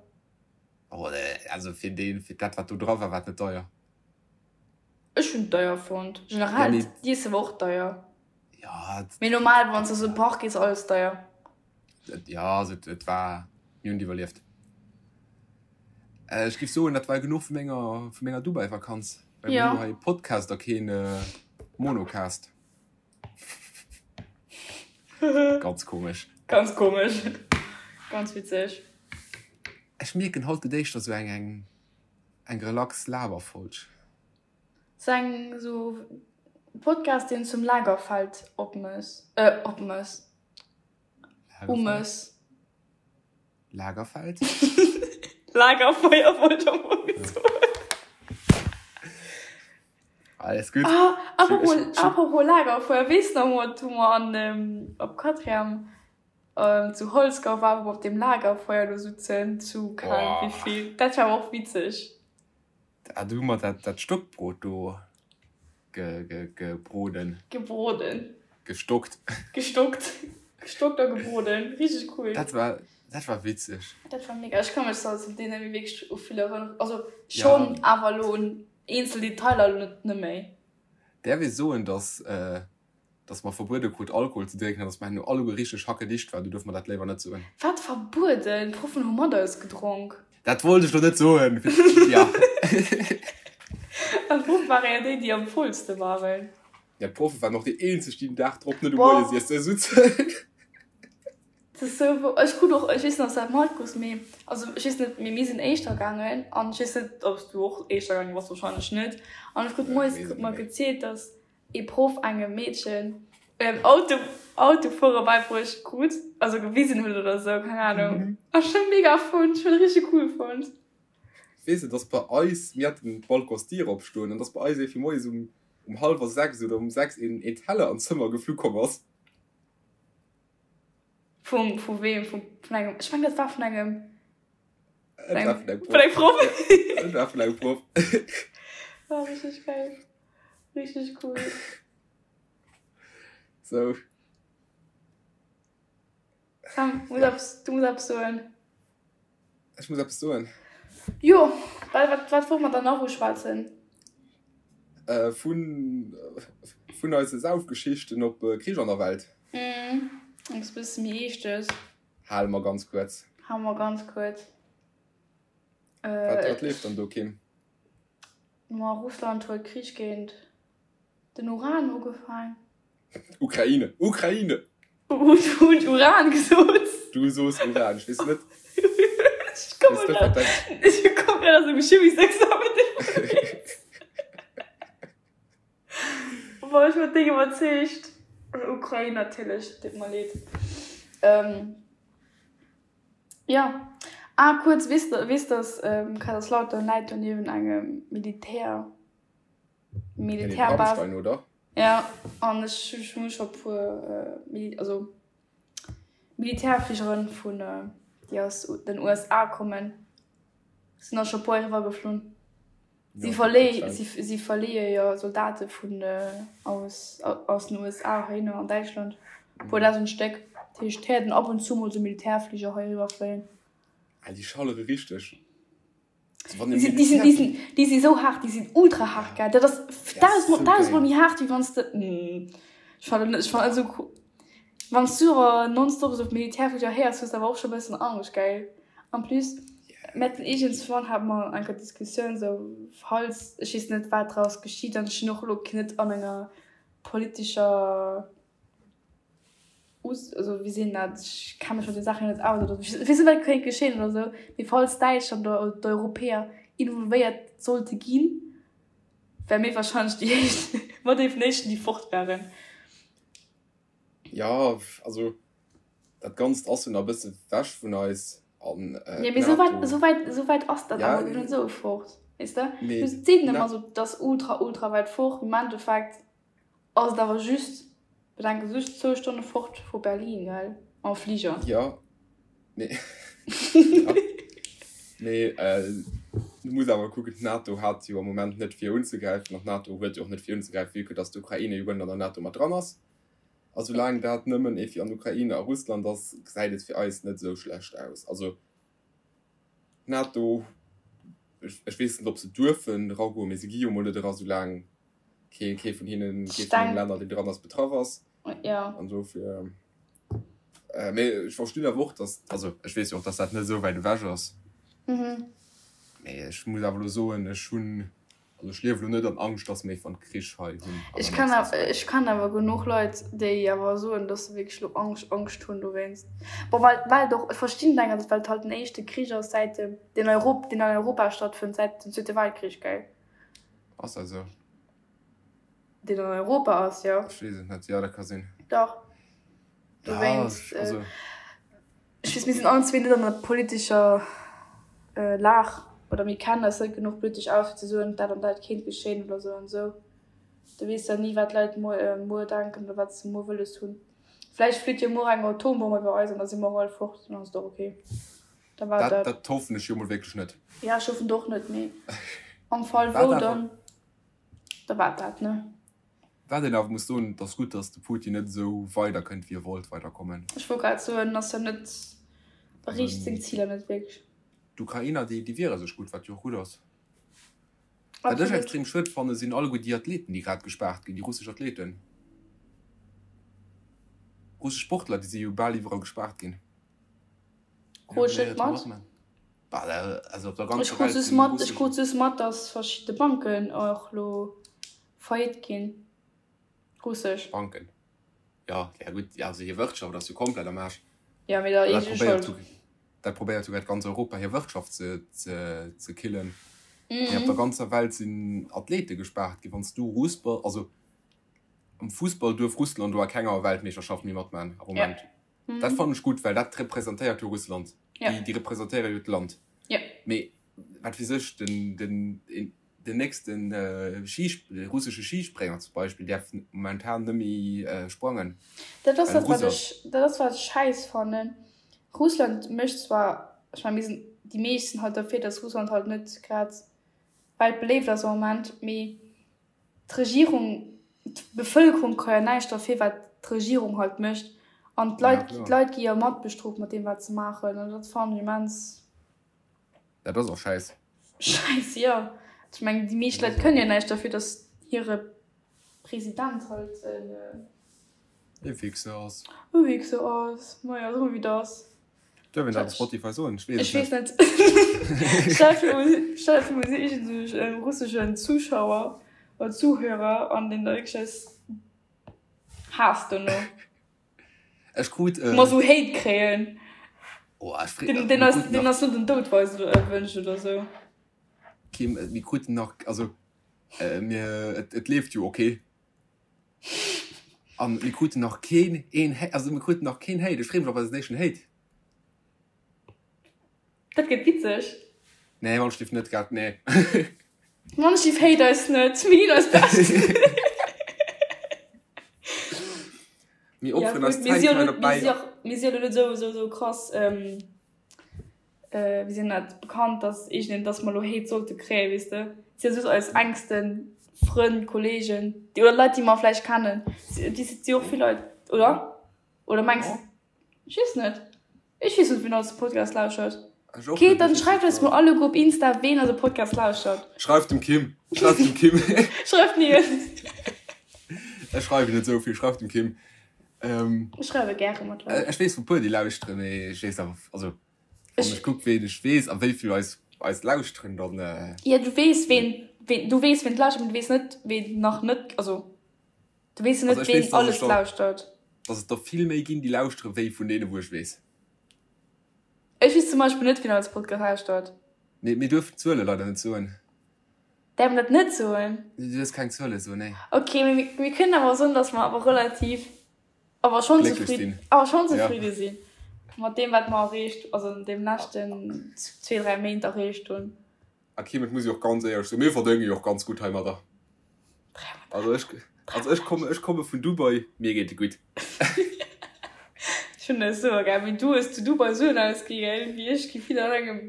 Oh, also fir deen, fir dat wat do dra war, war et net deier. Ech hunn et deier fonnt. Ja, Generell, mee d'Iesse war och deier. ja, Mee normal, wann s de an esou e Park gees, alles deier. Ja, also et war, mir hunn et iwwerlieft. Ech géif soen, dat war genuch vu menger, vu menger Dubai-Vakanz. Well mir Ja. hunn jo hei e Podcast a keen Monocast. Ganz komesch. Ganz komesch. Ganz witzeg. Ech mierken, haut gëtt éischter sou eng, eng, eng relax Laberfolg. Sou eng, sou Podcast, deen zum Lagerfeld opmëss, äh, opmëss. Umës. Lagerfeld? Lagerfeuer wollt ech am Fong soen. Alles gutt. Ah, apropos, apropos Lagerfeuer, weess de nach mol, wou mer an, ähm, op Quatrième ähm, zu Holzgau waren, wou mer op deem Lagerfeuer do sutzen, zu keng Ahnung Boah. wéivill. Dat war awer och witzeg. Ah, do hu mer dat, dat Stockbrot do ge, ge, gebroden. Gebroden. Gestockt. Gestockt. Gestockt a gebroden. Richteg cool. Dat war, dat war witzeg. Dat war mega. Ech ka mech zwar zu deene méi wierklech u vill erënneren. Also schonn, Ja. awer elo un eenzel Detailer elo net, net méi. Däerf ee soen, dass, dass mer verbuede krut Alkohol ze drénken an dass mer herno alleguer richteg hackedicht waren? Du duerf mer dat léiwer net soen. Wat verbueden? D'Proffen hu mat eis gedronk. Dat wollt ech lo net soen. Ja. An d'Proffe ware jo déi, déi am vollste waren. Ja, d'Proffe waren och déi eenzeg, déi den Dag drop net um Boah. Moiesiesse sutzen. Dat ass sou wou. Ech krut och, ech weess net, ob s dat matkriss, mee also ech weess net, mee mir sinn éischter gaangen an ech weess net, ob s du och éischter gaange bass, wahrscheinlech net. An ech krut moies krut mer gezielt, dass ee Proff engem Meedchen Auto Autofuere beibruecht krut, also gewisen huet oder sou, keng Ahnung. A ech hunn mega fonnt, ech hunn richteg cool fonnt. Weess de, dass bei eis, mir haten d'Balconsdier opstoen, an dass bei eis iergendwéi moies um um hallwer 6 oder um 6 een een Teller an d'Zëmmer geflu komm ass. Vum vu weem? Vum vun engem, ech mengen dat war vun engem Et war vun engem vun engem Proff. Proff. Ja, et war vun engem Proff. War richteg geil. Richteg cool. Sou. Sam, muss Ja. eppes, du muss eppes soen. Ech muss eppes soen. Jo, well wat, wat wollt mer dann nach uschwätzen? Äh, vun, vun eise Saufgeschichten op Krich an der Welt. Mhm, eppes bësse méi Eeschtes. Hale mer ganz kuerz. Hale mer ganz kuerz. Wat, Äh, wat leeft dann do, Kim? Ma Russland huet Krich géint den Uran ugefaang. Ukraine! Ukraine! Hunn Uran gesot? Du soos Uran, ech weess net. Ech komme grad, ech komme grad aus dem Chimiesexamen. Boah, ech war déck iwwerzeegt. Ukrain natierlech, deet mer leed. Jo. Ah, kuerz, weess de, weess dass Kaiserslautern läit jo niewent engem Militär, Militärbase. Rammstein, oder? Ja, an ech hu scho puer Mili, also Militärfligeren vun, déi aus den USA kommen, sinn der scho puer eriwwer geflunn. Si verléi, si, si verleeë jo Soldate vun aus, aus den USA heihinner an Däitschland. E puer dausend Stéck. Dat heescht, et héiert een ab und zu mol sou Militärfliger hei eriwwer fléien. Ah, déi schallere richteg. Déi sinn, déi sinn, déi sinn, déi si sou haart, déi sinn ultra haart, gell. Dat ass dausendmol, dausendmol méi haart, wéi wann s de, ech fannen net, ech fannen net esou cool. Wann s du awer nonstop esou Militärfliger héiers, hues de awer och scho e bëssen Angscht, gell. En plus, mir haten iergendswann hate mer eng Kéier d'Diskussioun esou, falls, ech weess net wat draus geschitt an ech sinn och elo net an enger politescher Us, also wéi seet een dat, ech kenne mech mat de Saachen net aus oder ech weess net wat kéint geschéien oder esou, mee falls Däitschland oder d'Europäer involvéiert sollte ginn, wäre mir wahrscheinlech déi éischt, mat ee vun den éischten déi fort wären. Jo, also dat Ganzt ass jo nach e bësse wech vun eis an Ja, mee esou wäit, esou wäit, esou wäit ass dat awer net esou fort, weess de? Du seet een ëmmer esou, dat ass ultra, ultra wäit fort, mee am Endeffekt ass et awer just, bedenke just zwou Stonne fort vu Berlin, gell, mam Fliger. Jo, mee, ja, mee du muss awer kucken, d'NATO hat jo am Moment net vir unzegräifen an d'NATO huet jo och net vir unzegräifen, vue que dass d'Ukraine jo guer net an der NATO mat dran ass. A soulaang dat nëmmen ee fir an Ukraine a Russland ass, gesäit et fir eis net esou schlecht aus. Also d'NATO, ech weess net, ob se duerfen eragoen, mee se gi jo mol net era soulaang kee kee vun hinnen, kee vun den Länner, deen dran ass, betraff ass. An dofir, mee ech verstinn awer och, datt, also ech weess jo och, datt dat net esou wäit ewech ass. Mee ech muss awer elo soen, ech hunn Also ech liewe lo net an Angscht, dass mir iwwer Krich hei hunn. Ech kann awer, ech kann awer genuch Leit, déi awer soen, dass se wierklech lo Angscht, Angscht hunn dowéinst. Bon, well, well et och, ech verstinn et engersäits, well et halt den éischte Krich ass säit dem, deen Europ, deen an Europa stattfënnt säit dem Zweete Weltkrich, gell? Ass dat esou? Deen an Europa ass, jo. Ech weess et net, jo, dat ka sinn. Dach. Dowéinst, ja, also. Ech weess, mir sinn allen zwee net an der politescher Lag oder mir kennen eis net genuch politesch aus, fir ze soen, dat an dat kéint geschéien oder esou an esou. Du weess jo ni, wat d'Leit muer, muer denken oder wat se muer wëlles hunn. Vläicht flitt jo muer eng Atombomm iwwer eis an da si mer och all fort, dann ass et och ok. Da war dat. Dat hoffen ech jo mol wierklech net. Ja, ech hoffen et och net, mee am Fall wou, dann, da war et dat, ne? Wat een awer muss soen, et ass gutt, datt de Putin net esou weider kënnt, wéi e wollt weiderkommen. Ech wollt grad soen, ass jo net, erreecht seng Ziler net wierklech. D'Ukrainer, déi, déi wiere sech gutt, wat jo och gutt ass. Wat ech extrem schued fannen, sinn alleguer déi Athleten, déi grad gespaart ginn, déi russesch Athleten. Russesch Sportler, déi si jo bal iwwerall gespaart ginn. Krut ech net mat. Also op der ganzer Ech krut Welt just sinn mat, ech russesch. krut just mat, datt verschidde Banken och elo Faillite ginn. Russesch. Banken. Jo, ja gutt, also hir Wirtschaft ass jo komplett am Aarsch. Ja, mee der Dat eege probéiert Schold. dat probéiert souguer ganz Europa hir Wirtschaft ze, ze, ze killen. Mee op der ganzer Welt sinn Athlete gespaart ginn. Wann s du Russ bass, also am Fussball duerf Russland do a kenger Weltmeeschterschaft méi matman am Moment. Dat fannen ech gutt, well dat representéiert jo Russland. Déi, déi representéiere jo d'Land. Mee wat weess ech, den, den, Den nächsten russesche Schisprénger zum Beispill däerf momentan net méi sprangen. Dat ass dat, wat ech, dat ass wat ech schäiss fannen. Russland mécht zwar, ech mengen mir sinn, déi meescht sinn halt derfir, datt Russland halt net grad weltbeléift ass am Moment, mee d'Regierung, d'Bevëlkerung ka jo näischt derfir, wat d'Regierung halt mécht. An d'Leit, d'Leit gi jo matbestrooft mat deem wat se maachen an dat fannen ech immens. Dat ass och schäiss. Schäiss, jo. Ech mengen, déi meescht Leit kënnen jo näischt derfir, datt hire President halt en. E Wichser ass. E Wichser ass. Maja, soe mer wéi et ass. Duerf een dat op Spotify soen? Ech weess et net. Ech weess net. Stell der vir, mir si iergendwou e russeschen Zuschauer oder Zuhörer an deen da wierklech eis haasst dono. Ech krut e. Mer sou Hate kréien. Oh, ech free, den, den, ass, den ass net den Doud weist oder äh, wënscht oder sou. Kim, äh, mir kruten nach, also äh, mir, et, et leeft jo okay. An mir kruten nach keen een, also mir kruten nach keen Hate. Ech free mech op eisen éischten Hate. Dat gëtt witzeg. Nee, Wandschliff net grad, nee. Wandschliff hate eis net, mir ginn eist Bescht. Mir opferen eis Zäit hei derbäi. Mir si jo net esou, esou, esou krass, wéi sinn dat, bekannt, dass iergendeen, dass mer elo Hate sollte kréien, weess de. Et si jo just eis engsten Frënn, Kollegen, déi, oder Leit, déi mer vläicht kennen. Et si jo och vill Leit, oder? Oder mengs de? Ech weess net. Ech weess net wien eise Podcast lauschert. Ech och Okay, net, dann ech weess schreift net. eis mol alleguer op Insta ween eise Podcast lauschert. Schreift dem Kim. Schreift dem Kim. Schreift mir. Ech schreiwen net esou vill, schreift dem Kim. Ähm, Ech schreiwe gäre mat Leit. ech weess vu puer déi lauschteren, mee ech weess awer, also wann Ech ech kuck ween ech weess a wéi vill eis eis lauschteren, dann äh, Ja, du weess ween, ween, du weess ween lauschtert, mee du weess net ween nach net, also du weess jo also net ech ween weess, dass alles ech der lauschtert. dass et der vill méi ginn déi lauschtere wéi vun deene wou ech weess. Ech weess zum Beispill net wien eise Podcast lauschtert. Mee mir duerfen d'Zuele leider net soen. Däerf mer dat net soen? Du duerfs keng Zuele soen, nee. Ok, mee mir, mir kënnen awer soen, dass mer awer relativ, awer schonn Glécklech zefridden, sinn. awer schonn Ja. zefridde sinn mat deem wat mer erreecht, also an deem leschten zwee, dräi Méint erreecht hunn. A Kim, et muss ech och ganz éierlech soen, mir verdénge jo och ganz gutt heimadder. Also ech, also ech komme, ech komme vun Dubai, mir geet et gutt. Ech hunn dat esou gär, wéi du hues zu Dubai Suen ausgi gell, wéi ech gi vill an engem.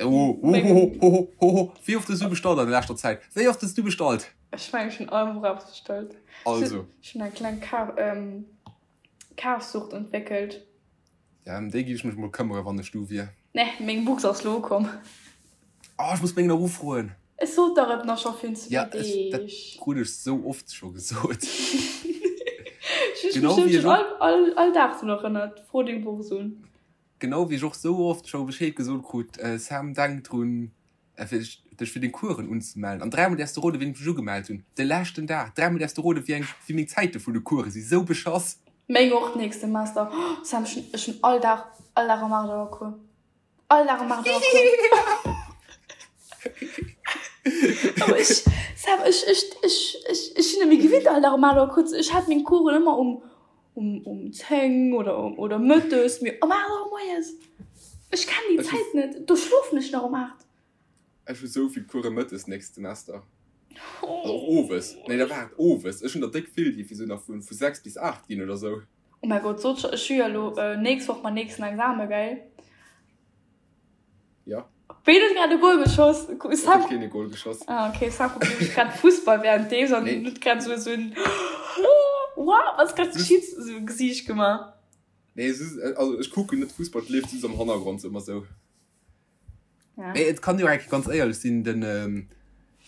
Oh, oh, oh, oh, oh, oh. Wéi oft hues du bestallt an der leschter Zäit? Wéi oft hues du bestallt? Ech mengen, ech hunn all Woch eppes bestallt. Also. Ech hunn eng kleng Kaf, ähm, Kafsucht entwéckelt. Ja, ëm déi géif ech mech mol këmmere wann ech du wier. Nee, meng Box ass lo ukomm. Oh, ech muss meng nach ufroen. Ech sot der et nach scho virun zwee Ja, ech, dat Deeg. krut ech sou oft scho gesot. Ech hunn Genau mech wéi ech schon och, all, all, all Dag drun erënnert. Fro deng Box un. genau wéi ech och sou oft scho Bescheed gesot krut, Sam, denk drun, fir dech fir deng Coursen unzemellen. An dräimol däerfs de roden, wéi ech mech ugemellt hunn. De leschten Dag. Dräimol däerfs de roden, wéi eng, wéi meng Zäite vun de Course sinn. Sou beschass. Meng och d'nächst Semester. Oh Sam, ech hunn, ech hunn all Dag, all Dag um 8 Auer Cours. All Dag um 8 Auer Cours. Awer ech, Sam, ech, ech, ech, ech, ech sinn net méi gewinnt all Dag um 8 Auer Cours ze, ech hat meng Coursen ëmmer um, um, um 10 oder um, oder mëttes, mee um 8 Auer moies, ech kenn déi Zäit net, do schlofen ech nach um 8. Ech hu sou vill Course mëttes nächst Semester. Also och owes. Nee, da waart, owes. Ech hunn der déck vill, déi fir sou nach vu 6 bis 8 ginn oder sou. Oh mäi Gott, sot scho, ech hu jo elo nächst Woch mäin nächsten Examen, gell? Ja. Ween huet grad e Goal geschoss? Et huet keen e Goal geschoss. Ah, okay, Sam kuckt nämlech grad Fussball währenddeems an Nee. huet grad sou esou en Wow, wat ass grad geschitt? Esou e Gesiicht gemaach. Nee, es ist, also ech kucken net Fussball, et leeft just am Hannergrond sou ëmmer sou. Ja. Mee et kann jo eng Kéier ganz éierlech sinn, den,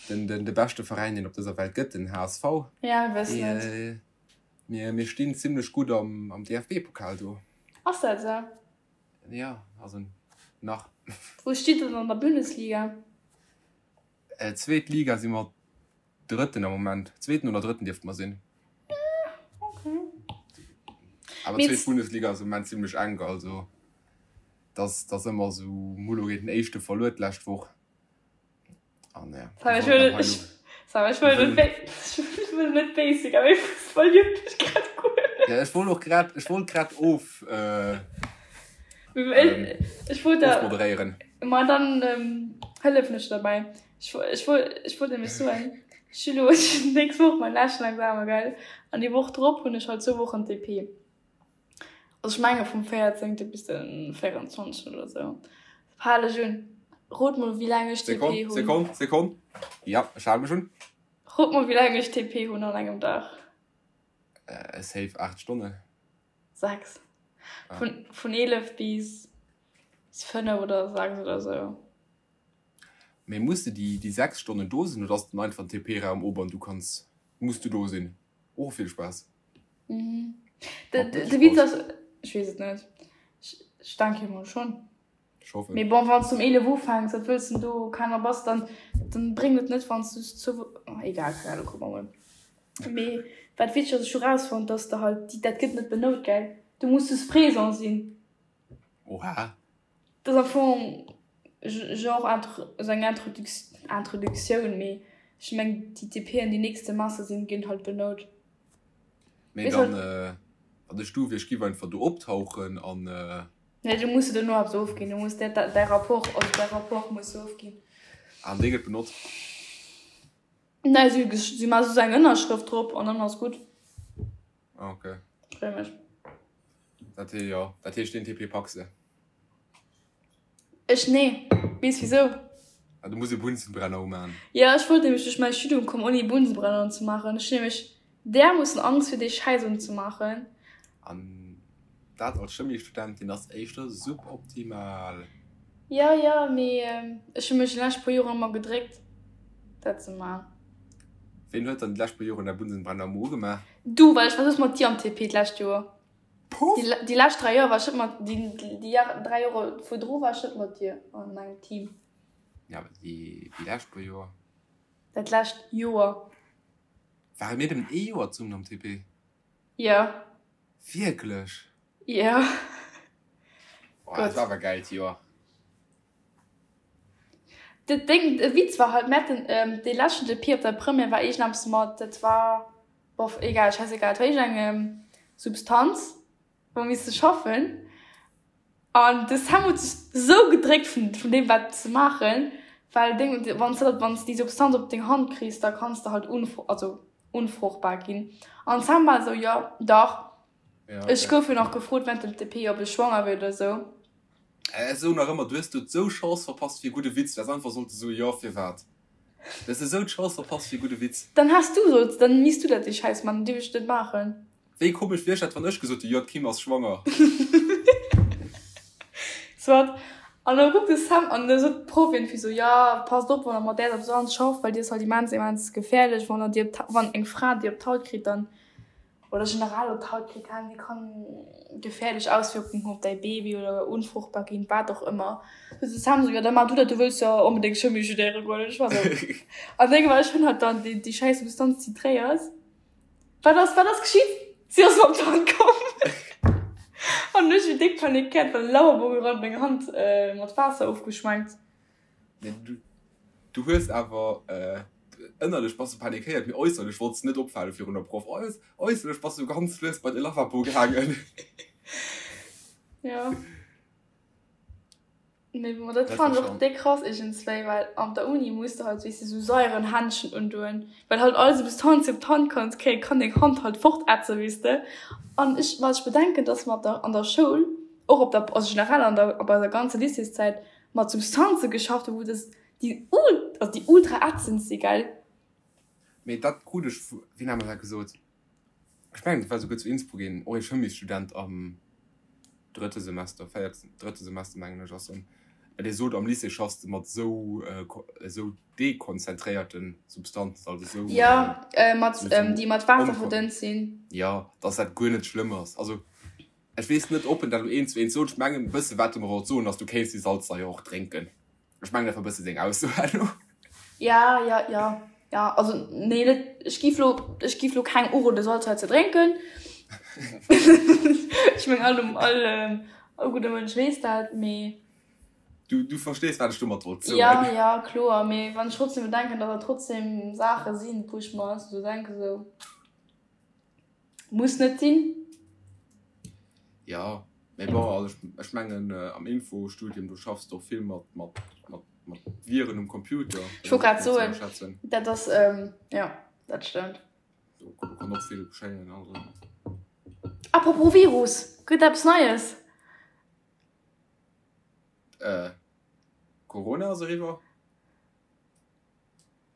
den, den, de beschte Veräin, deen op dëser Welt gëtt, den HSV, Ja, mir wëssen et. dee, mir, mir stinn zimlech gutt am, am DFB-Pokal do. Ass dat esou? Ja, also nach. Wou steet der dann an der Bundesliga? Äh, zweet Liga si mer Drëtten am Moment. Zweeten oder Drëtten dierfte mer sinn. Okay. Awer Mee zweet Bundesliga ass am Moment zimmlech enk, also dass dass ëmmer esou Mullo géint den Éischte verluer d'lescht Woch. An ja, Sam, wir ech wollten wëll am ech, Heilo. Sam, ech Wir wëll net wëllen. ech wëll net basic, awer Fussball juckt mech grad guer net. Ja, ech wollt och grad, ech wollt grad of, äh, ähm, Ech wollt der, ofmoderéieren. ma dann ähm, hëllefen ech derbäi. Ech, ech wollt, ech wollt nämlech soen, ech hu lo nächst Woch mein leschten Examen, gell? An déi Woch drop hunn ech halt zwou Wochen TP. Also ech menge vum 14. bis den 24. oder sou. Hal ech un. Rot mol wéi laang ech TP Sekonn, hunn. Sekonn, Sekonn. Ja, ech hale mech un. Rot mol wéi laang ech TP hunn an engem Dag. Äh, safe 8 Stonnen. 6. Ah. Vun, vun 11 bis 5 oder 6 oder sou. Mee muss de déi, déi 6 Stonnen do sinn oder ass dann einfach den TP-Raum op an du kanns, muss du do sinn? Och vill Spaass. Mhm. De, Mat de, de Witz Mëttespause. ass, ech weess et net. Ech, ech denke mol schonn. Ech hoffen. Mee bon, wann s du um 11 ufänks, wat wëlls de do keiner bass, dann, dann bréngt et net, wann s du zu, oh, egal, keng Ahnung, kucke mer mol. Mee wat wichteg ass, ech hu rausfonnt, dass de halt, déi, dat gëtt net benout, gell? Du muss just présent sinn. Oha. Dat ass am Fong genre esou eng Introduktioun, mee ech mengen déi TPen déi nächst Semester sinn, ginn halt benout. Mee dann, wann ech du wier, ech giff einfach do optauchen an. Nee, du muss de dono eppes ofginn. Du muss däi, däi Rapport, also däi Rapport muss du ofginn. An dee gëtt benotzt? Nee, si, si maache soss eng Ënnerschrëft drop an dann ass gutt. Ah, okay. Free mech. Dat hee, jo, dat heescht deen TP packs de? Ech nee. Weess wisou? Ah, du muss e Bunsenbrenner umaan. Jo, ech wollt nämlech duerch mäi Studium kommen ouni e Bunsenbrenner unzemaachen. Ech hunn nämlech därmoossen Angst fir dee Schäiss unzemaachen. An dat als Chemiestudentin ass éischter suboptimal. Jo, jo, mee ech hu mech déi lescht puer Joren ëmmer gedréckt dat ze maachen. Ween huet dann déi lescht puer Joren däi Bunsenbrenner ëmmer ugemaach? Du, well ech war soss mat dir am TP d'lescht Joer. Puff! Déi lescht 3 Joer war ech net mat, déi 3 Jore virdru war ech net mat dir an engem Team. Ja, awer déi lescht puer Joer. Dat lescht Joer. Ware mir nëmmen ee Joer zesummen am TP? Jo. Wierklech? Jo. Oh, dat war awer e gäilt Joer. Dat Déng, de Witz war halt, mir haten dee leschten TP op der Première war iergendeppes mat, dat war. Bof, egal, scheißegal, et war iergendeng Substanz, wou mir misste schaffen. An de Sam huet sech sou gedréckt vun, vun deem wat ze maachen, well deng, wann s de dat, wann s de déi Substanz op deng Hand kriss, da kanns de halt unfru, also unfruchtbar ginn. An de Sam war esou, jo, dach. Ja, Ech okay. gouf jo nach gefrot während dem TP, ob ech schwanger wier oder sou. Ech soen nach ëmmer, du hues do sou Chance verpasst fir e gudde Witz. Du häss einfach sollte soen, jo, firwat? Du hues esou d'Chance verpasst fir e gudde Witz. Dann häss du solls, dann misst du dat déi Schäiss man, dierf ech net maachen. Wéi komesch wier dat, wann ech gesot hu, jo, d'Kim ass schwanger. Soit. An da kuckt de Sam an da sot d'Proff iergendwéi sou, jo, passt op, wann der mat där Substanz schafft, well déi ass halt immens, immens gefährlech, wann der déi op d'Ha-, wann eng Fra déi op d'Haut kritt, dann oder generell op d'Haut kritt, kann, déi kann gefährlech Auswirkungen hunn op däi Baby oder unfruchtbar ginn, wat och ëmmer. Du de Sam sou, jo da maach du dat, du wëlls jo onbedéngt Chimie studéiere goen. Ech war sou, an deng war, ech hunn halt dann déi, déi schäiss Substanz titréiert. Wat ass, wat ass geschitt? Si ass mer op d'Hand komm an ech hu déck panikéiert, well de Lavabo gerannt, meng Hand mat Waasser ofgeschwenkt. Nee, du, du hues awer äh, ënnerlech bass du panikéiert, mee äusserlech wollts du net opfale virun der Proff. Äus, äusserlech bass du ganz lues bei de Lavabo gaangen. Ja. Mee bon, dat Dat war fannen ech och schon. déck krass iergendswéi, well an der Uni muss de halt, weess de, sou saieren Händschen undoen, well halt all Substanz, déi op d'Hand kanns kréien, kann deng Hand halt fortätzen, weess de. An ech, wat ech bedenken, dass mer op der, an der Schoul, och op der, also generell an der, op eiser ganzer Lycéeszäit, mat Substanze geschafft hunn, wou das déi ul also déi ultra ätzend si, gell? Mee dat krut ech vu, wien hat mer dat gesot? Ech mengen, dat war souguer zu Innsbruck een, och ee Chemiesstudent am drëtte Semester, véierte, drëtte Semester mengen ech ass en, dee sot, am Lycée schaffs de mat esou, esou dekonzentréierte Substanzen, also esou, Jo, mat, esou, esou déi mat Waasser onkon, verdënnt sinn. jo, dass dat guer net schlëmm ass. Also Ech weess net, ob en dat elo eent zu eent sot. Ech mengen, e bësse wat e mer wollt soen, ass, du kéints déi Salzsaier och drénken. Ech mengen, dat war e bësse seng Ausso herno. Ja, ja, ja, ja. Also, nee, net, ech giff lo, ech giff lo kengem uroden, Salzsaier ze drénken. Ech mengen, all, all, all gudde Mënsch weess dat, mee. Du, du verstees, wat ech domat wollt soen. Ja, ja, kloer. Mee wann ech trotzdem bedenken, datt dat trotzdem Saache sinn, wou ech mer esou denken, esou. Muss net sinn. Jo, mee bon, also ech mengen am Infostudium do schaffs de och vill mat mat mat mat Viren um Computer. Ech wollt grad soen, dat ass jo dat stëmmt. Do kann och vill geschéien also. Apropos Virus, gëtt eppes Neies? Corona ass eriwwer.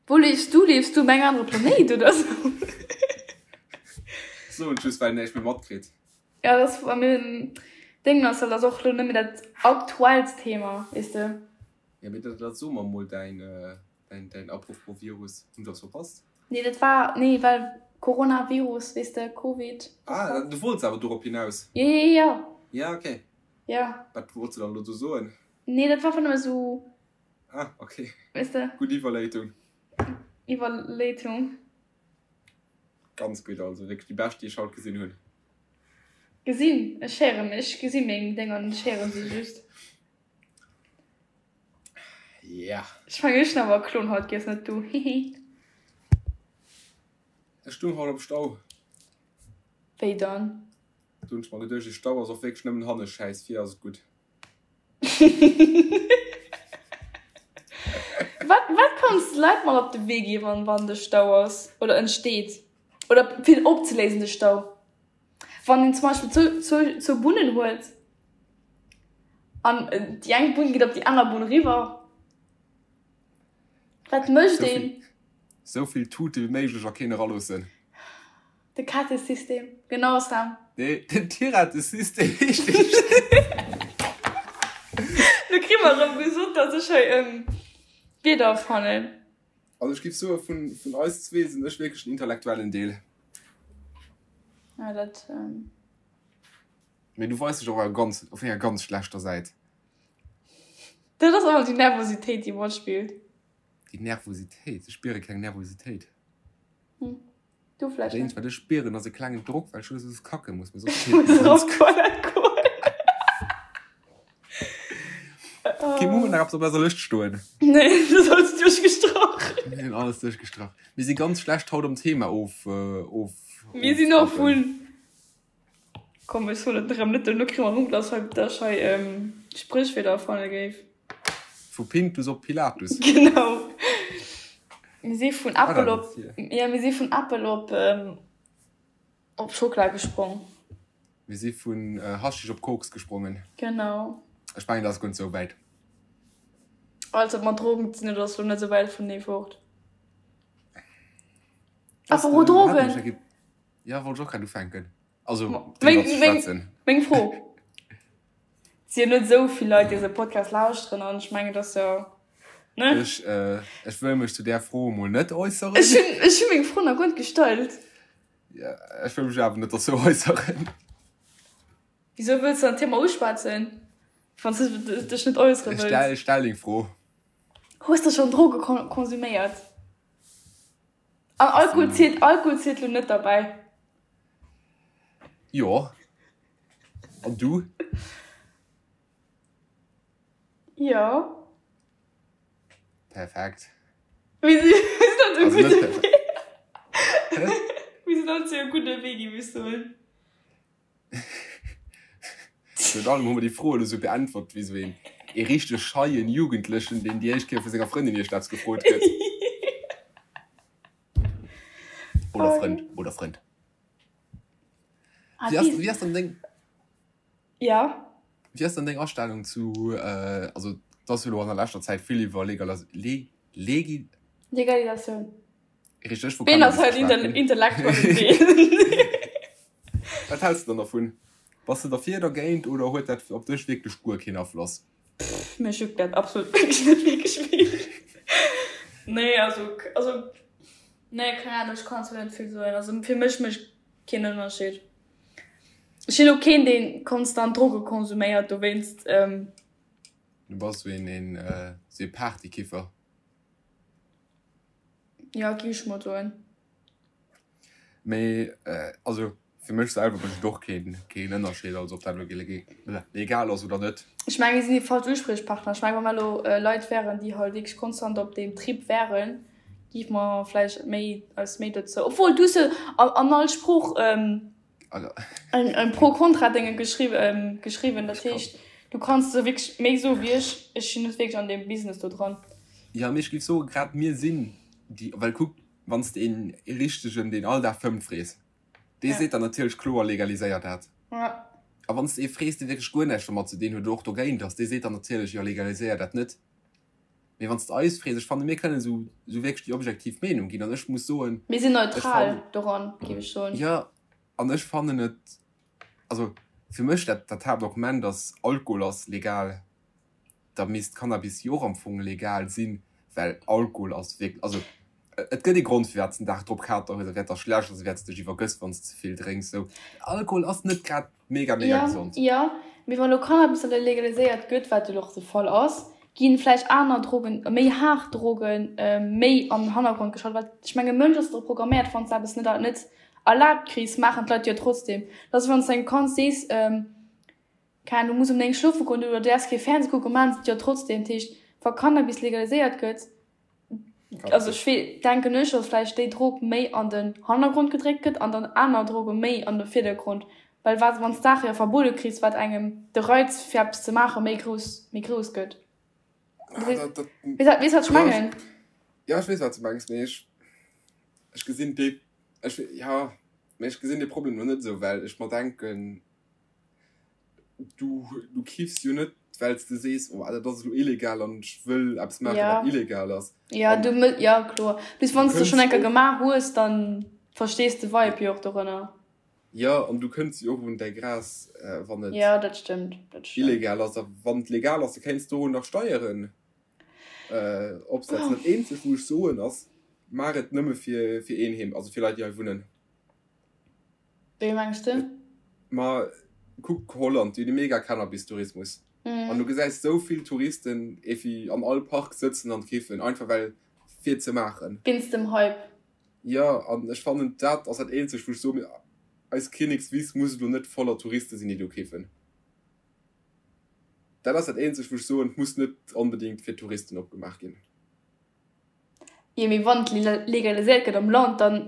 Wou liefs du? Liefs du um engem anere Planéit oder sou? Soen just well näischt méi matkritt. Ja dat ass bei mir Deng ass dat ass och lo net méi dat aktuellst Thema, weess de. Ja mee dat dat so mer mol däin däin däin Apropos Virus, hunn ech eppes verpasst? Nee dat war nee well Coronavirus, weess de, Covid. Ah du wollts awer dorop hinaus? Jo jo jo. Ja okay. Ja. Wat wollts du dann elo do soen? Nee dat war einfach nëmme sou. Ah, okay. Weess de? Gutt Iwwerléitung. Iwwerléitung. Ganz gutt, also wierklech déi bescht, déi ech haut gesinn hunn. Gesinn? Ech héieren, ech gesi meng Dénger net, ech héiere se just. Ja. Ech mengen, ech hunn awer e Klon haut giess, net du. Hihi. Ech stung haut am Stau. Wéi dann? Du hunn ech mer geduecht, dee Stau ass och wierklech nëmmen hanne schäiss, vir ass et gutt. Wat, wat kanns de Leit mat op de Wee ginn, wann, wann de Stau ass oder entsteet? Oder fir opzeléisen, de Stau? Wann een zum Beispill zwou, zwou, zwou Bunnen huet an déi eng Bunn geet op déi aner Bunn eriwwer, wat mécht een? Sou vill Tute wéi méiglech a keen eraloossen. De Kette-System, genau Sam. Nee, den Tirette-System heescht dee. Lo kri mer erëm gesot, datt ech hei Wierder erfannen. Also ech giff soen, vun, vun eis zwee sinn ech wierklech den intellektuellen Deel. Ja, dat. Ähm... Mee du weis dech och ganz, op enger ganz schlechter Säit. Dat ass awer déi Nervositéit, déi matspillt. Déi Nervositéit? Ech spiere keng Nervositéit. Hm. Du vläicht net. Wat ech spieren, ass e klengen Drock, well ech elo soss kacke muss. Mee soss feelt mir ganz. Op d'Toilette goen. Okay, mir hunn nach eppes op eiser Lëscht stoen. Nee, du ass alles duerchgestrach. Mir hunn alles duerchgestrach. Mir si ganz schlecht haut am Thema of, of. Mir sinn och vun. Komm, ech soen et erëm net, duerno kréie mer erëm, dass hei, dass ech hei Spréchwierder erfanne géif. Vu Pintus op Pilatus. Genau. Mir si vun Äppel op, jo, mir si vun Äppel op, op Schockela gesprong. Mir si vun Haschisch op Koks gesprongen. Genau. Ech mengen, dat ass guer net sou wäit. Alles wat mat Drogen ze dinn huet, ass lo net sou wäit vunenee fort. Apropos Drogen. Jo, wollt ech och grad ufänken. Also, driwwer ze schwätzen. Meng Fro. Et si jo net esou vill Leit, déi eise Podcast lauschteren an ech mengen, et ass jo, ne? Ech, ech wëll mech zu där Fro emol net äusseren. Ech hunn, ech hu meng Fro nach guer net gestallt. Ja, ech wëll mech awer net dozou äusseren. Wisou wëlls de dann d'Thema uschwätzen, wann s de dech net äussere wëlls? Ech stell deng Fro. Hues de schonn Droge konsuméiert? An Alkohol zielt, Alkohol zielt lo net derbäi. Jo. An du? Jo. Perfekt. Mir sinn, mir sinn op dem gudde Wee. Mir sinn op dem gudde Wee, géif ech soen. Virun allem hu mer déi Fro elo sou beäntwert wéi sou een ee richteg scheien Jugendlechen, deen déi éischt Kéier vu senger Frëndin iergendeppes gefrot gëtt. Oder Frënd, oder Frënd. Wéi ass, wéi ass dann deng. Ja. Wéi ass dann deng Astellung zu, also et ass jo elo an der leschter Zäit vill iwwer Legalas-, Le-, Legi-. Legalisatioun. Richteg, vu Cannabis geschwat ginn. Intellektuellen Deel. Wat häls de dann dervun? Bass de derfir, dergéint oder huet dat op dech wierklech guer keen Afloss? Pff, mech juckt dat absolut wierklech net wierklech vill. Nee, also, also, nee, keng Ahnung, ech kann zwar net vill soen. Also fir mech mécht keen Ënnerscheed. Ech sinn och keen, dee konstant Droge konsuméiert, dowéinst. Du bass esou een, een, esou ee Partykiffer. Jo, gi ech mol soen. Mee also fir mech selwer mécht et och keen keen Ënnerscheed, also ob dat elo legal ass oder net. Ech mengen, mir sinn déi falsch Uspriechpartner. Ech mengen, wa mer elo Leit wären, déi halt wierklech konstant op deem Trip wären, géife mer vläicht méi eis méi dozou, obwuel du hues jo an all Sprooch en Pro-Kontra-Dénge geschriwwen, dat heescht, du kanns do wierklech méi soe wéi ech. Ech sinn net wierklech an deem Business do dran. Jo, mee ech géif soen, grad mir sinn déi, well kuck, Wann s de een richtegen, deen all Dag fëmmt, frees, dee seet der natierlech kloer, legaliséier dat. A wann s de ee frees, dee wierklech guer näischt domat ze dinn huet oder och dogéint ass, dee seet der natierlech, jo, legaliséier dat net. Mee wann s de eis frees, ech fannen, mir kënnen esou wierklech déi objektiv Meenung ginn. An ech muss soen, Mir sinn neutral doran, géif ech soen. Jo, an ech fannen et, also fir mech dat Haaptargument ass, Alkohol ass legal. da misst Cannabis jo och am Fong legal sinn, well Alkohol ass wierklech, also et gëtt ee Grond firwat s den Dag drop Kater hues a wäert der schlecht ass a wäert s dech iwwergëss wann s ze vill drénks sou. Alkohol ass net grad mega mega Ja, gesond. jo, mee wann elo Cannabis dann legaliséiert gëtt, wat jo elo och de Fall ass, ginn vläicht aner Drogen, méi haart Drogen méi an den Hannergrond geschalt, well ech mengen e Mënsch ass dru programméiert, wann s de eppes net net erlaabt kriss, maachen d'Leit jo trotzdem. Dat ass wéi wann s de engem Kand sees, Keng Ahnung, du muss um 9 schlofe goen oder du däerfs kee Fernseh kucken, maachen se et jo trotzdem. Dat heescht, wa Cannabis legaliséiert gëtt, also ech wee, denken ech, datt vläicht déi Drog méi an den Hannergrond gedréckt gëtt an dann aner Droge méi an de Virdergrond. Well wat, wann s d'Saache jo verbuede kriss, wat engem de Reiz fir eppes ze maache méi grouss, méi grouss gëtt. Weess wat, weess wat ech mengen? Jo, ech weess wat s de mengs, mee ech, ech gesinn dee, ech, jo, mee ech gesinn dee Problem lo net esou, well ech mer denken, du, du kiffs jo net, well s de sees, oh dat ass elo illegal an ech wëll eppes maachen, wat illegal ass. Jo, du, jo, kloer. Plus wann s de schonn eng Kéier gemaach hues, dann verstees de Vibe jo och dorënner. Jo, an du kënns jo och un däi Gras, wann et Jo, dat stëmmt, dat stëmmt. illegal ass. A wann et legal ass, da kéints du nach Steieren opsetzen. Dat eenzegt, wou ech soen, ass, maach et nëmme fir, fir Eenheem, also fir Leit, déi hei wunnen. Wéi mengs de? Ma kuck Holland, déi hunn e mega Cannabis-Tourismus. An du gesäis esou vill Touristen evi an all Park sëtzen an kiffen, einfach well fir ze maachen. Wéinst dem Hype. Jo, an ech fannen dat ass dat eenzegt wou ech soen, eis Kinnekswiss muss elo net voller Touriste sinn déi do kiffen. Dat ass dat eenzegt wou ech soen, et muss net onbedingt fir Touristen opgemaach ginn. Jo, mee wann et legaliséiert gëtt am Land, dann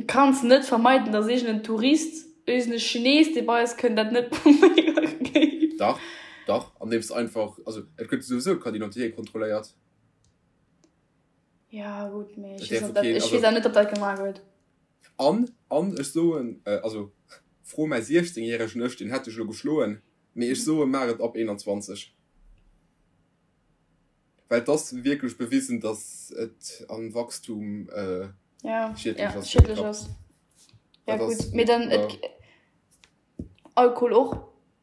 kanns de net vermeiden, dass iergend en Tourist, iergend e Chines, dee bei eis kënnt, dat net probéiere géif. Dach, dach, andeems einfach, also et gëtt souwisou d'Carte d'identité kontrolléiert. Ja gutt, mee ech weess, dat, ech weess net, ob dat gemaach gëtt. An, an ech soen, also fro mäi 16 järegen Ech, deen hätt dech elo geschloen, mee ech soe maach et ab 21. Well et ass wierklech bewisen, datt et am Wachstum ja, schiedlech ass. Ja, schiedlech ass. Ja gutt, mee dann et, Alkohol och.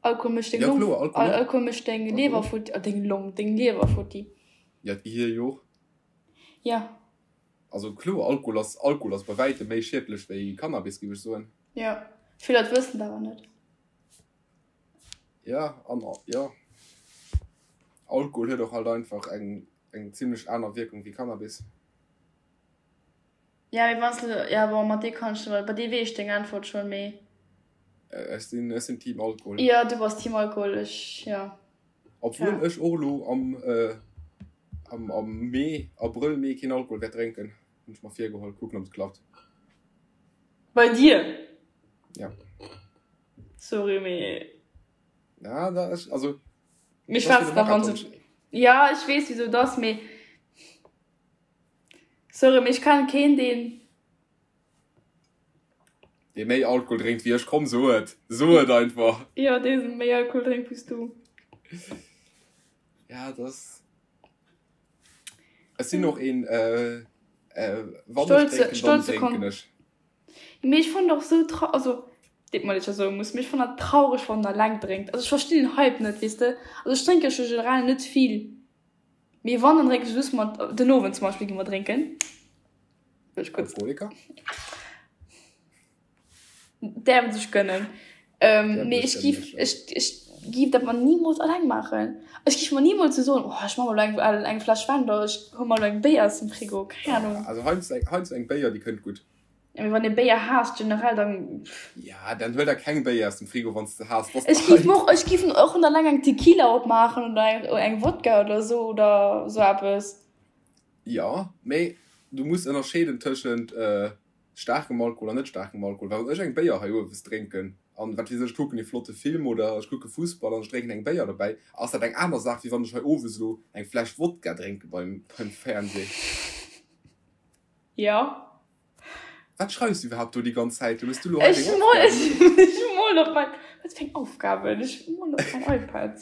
Alkohol mécht deng Long, Alkohol mécht deng Liewer futti, deng Long, deng Liewer futti. Ja, d'Gehir jo och. Ja. Also kloer, Alkohol ass, Alkohol ass bei wäitem méi schiedlech wéi Cannabis, géif ech soen. Ja, vill Leit wëssen dat awer net. Ja, an jo, Alkohol huet och halt einfach eng, eng zimlech aner Wierkung wéi Cannabis. Ja, mee wanns de, ja bon, mat deem kann ech, bei deem weess ech deng Äntwert schonn, mee. Ech sinn, ech sinn Team Alkohol. Jo, du bass Team Alkohol, ech, jo. Obwuel ja. ech och elo am, äh, am, am Mee, Abrëll, Mee keen Alkohol wäert drénken. Hunn ech mer virgeholl, kucken ob et klappt. Bei dir? Ja. Sorry, mee. Ja, da ech, also. Mir schwätzen nach an. Ja, ech weess wieso das, mee. Sorry, mee ech kennen keen, deen. Dee méi Alkohol drénkt wéi ech, komm so et, so et einfach. Jo, dee méi Alkohol drénkt wéi s du. Ja, dat ass. Ech sinn och een, wann ech drénken, dann drénken ech. Mee ech fannen och sou trau, also deet mer leed, ech dat soe muss, mee ech fannen dat traureg, wann een eleng drénkt. Also ech verstinn den Hype net, weess de. Also ech drénke scho generell net vill. Mee wann, dann drénken ech just mat, den Owend zum Beispill gi mer drénken. Wëll ech kuerz. Alkoholiker? Däerf sech gönnen. Ähm, mee ech giff, ech, ech giff dat mer nimools alleng maachen. Ech giff mer nimools sou soen, oh ech maache mer elo eng, eng Fläsch Wäin oder ech huele mer elo eng Béier aus dem Frigo, keng Ahnung. Also heiansdo eng, heiansdo eng Béier, déi kënnt gutt. Ja, mee wann ee Béier haasst generell, dann. Ja, dann huel der keng Béier aus dem Frigo, wann s de haasst. Ech giff mer och, ech giff och net alleng eng Tequila opmaachen oder eng, eng Wodka oder sou oder sou eppes. Jo, mee du muss ënnerscheeden tëschent staarkem Alkohol an net staarkem Alkohol. Well wann ech eng Béier hei owes drénken an, wat weess ech, ech kucken ee flotte Film oder ech kucke Fussball an ech drénken eng Béier dobäi, ass dat eng aner Saach, wéi wann ech hei owes elo eng Fläsch Wodka drénke beim, beim Fernseh. Jo. Wat schreifs du iwwerhaapt do déi ganz Zäit? Hues du lo hei deng Aufgaben? Ech molen op mein, wat fir eng Aufgaben? Ech molen op mein iPad.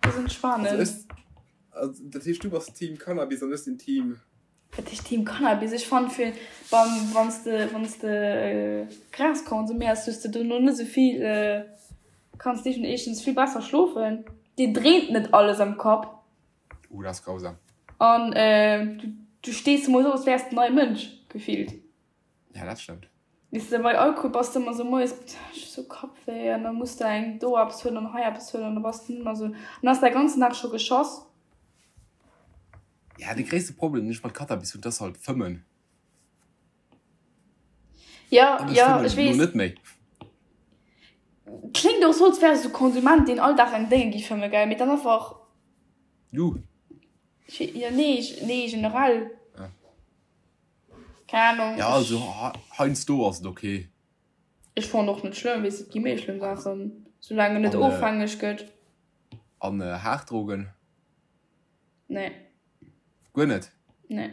Dat ass entspanend. Also ech, also dat heescht du bass Team Cannabis an ech sinn Team. Wat heescht Team Cannabis? Ech fannen fir beim, wann s de, wann s de Gras konsuméiers, hues de dono net esou vill, kanns de éischtens vill besser schlofen, dir dréint net alles am Kapp. Uh, dat ass grausam. An du, du stees moies op, als wäers de en neie Mënsch, gefillt. Ja, dat stëmmt. Weess de, bei Alkohol bass de ëmmer sou moies, ech hu sou Kappwéi, an da muss de eng do eppes huelen an hei eppes huelen, an da bass de nëmmer sou, an da ass däi ganzen Dag scho geschoss. Ja, de gréisste Problem, deen ech mat Cannabis hunn, dat ass halt Fëmmen. Ja, An ech ja, fëmmen ech elo weess. net méi. Kléngt och sou, als wäers du Konsument, deen all Dag eng Dénge gi fëmme, gell, mee dann einfach. Du? Ja, nee, nee, generell. Ah. Keng Ahnung. Ja, also heiansdo ass et ok. Ech fannen och net schlëmm, weess et gi méi schlëmm Saachen, soulaang en net ofhängeg gëtt. An haart Drogen? Nee. Guer net? Nee.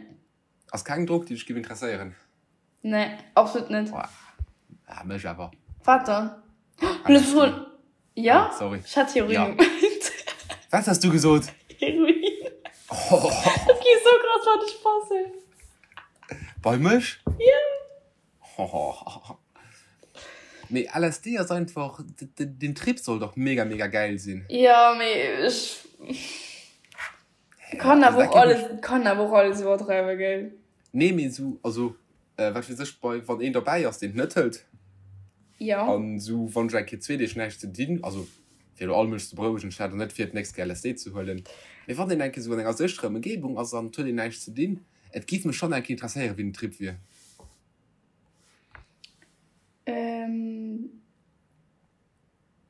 Ass keng Drog déi dech giff interesséieren? Nee, absolut net. Ah, mech awer. Wat dann? LSD. Ja? Ah, sorry. Ech hat Heroin ja. gemeint. Wat has du gesot? Heroin. Oh. Dat geet sou krass wat ech passen. Bei mech? Ja. Oh. Mee LSD ass einfach, den Trip soll doch mega mega geil sinn. Ja, mee ech kann awer och alles, kann awer och alles iwwerdreiwen, gell? Nee, mee sou, also wat weess ech, bei wann een derbäi ass, deen et net hëlt. Ja. An sou wann ech eng Kéier zwee Deeg näischt ze dinn, also fir elo all Mënsch ze berouegen, ech hat och net vir d'nächst Kéier LSD ze huelen, mee wann een eng Kéier sou an enger sécherer Ëmgebung ass an et huet een näischt ze dinn, et giff mech schonn eng Kéier interesséieren, wéi den Trip wier.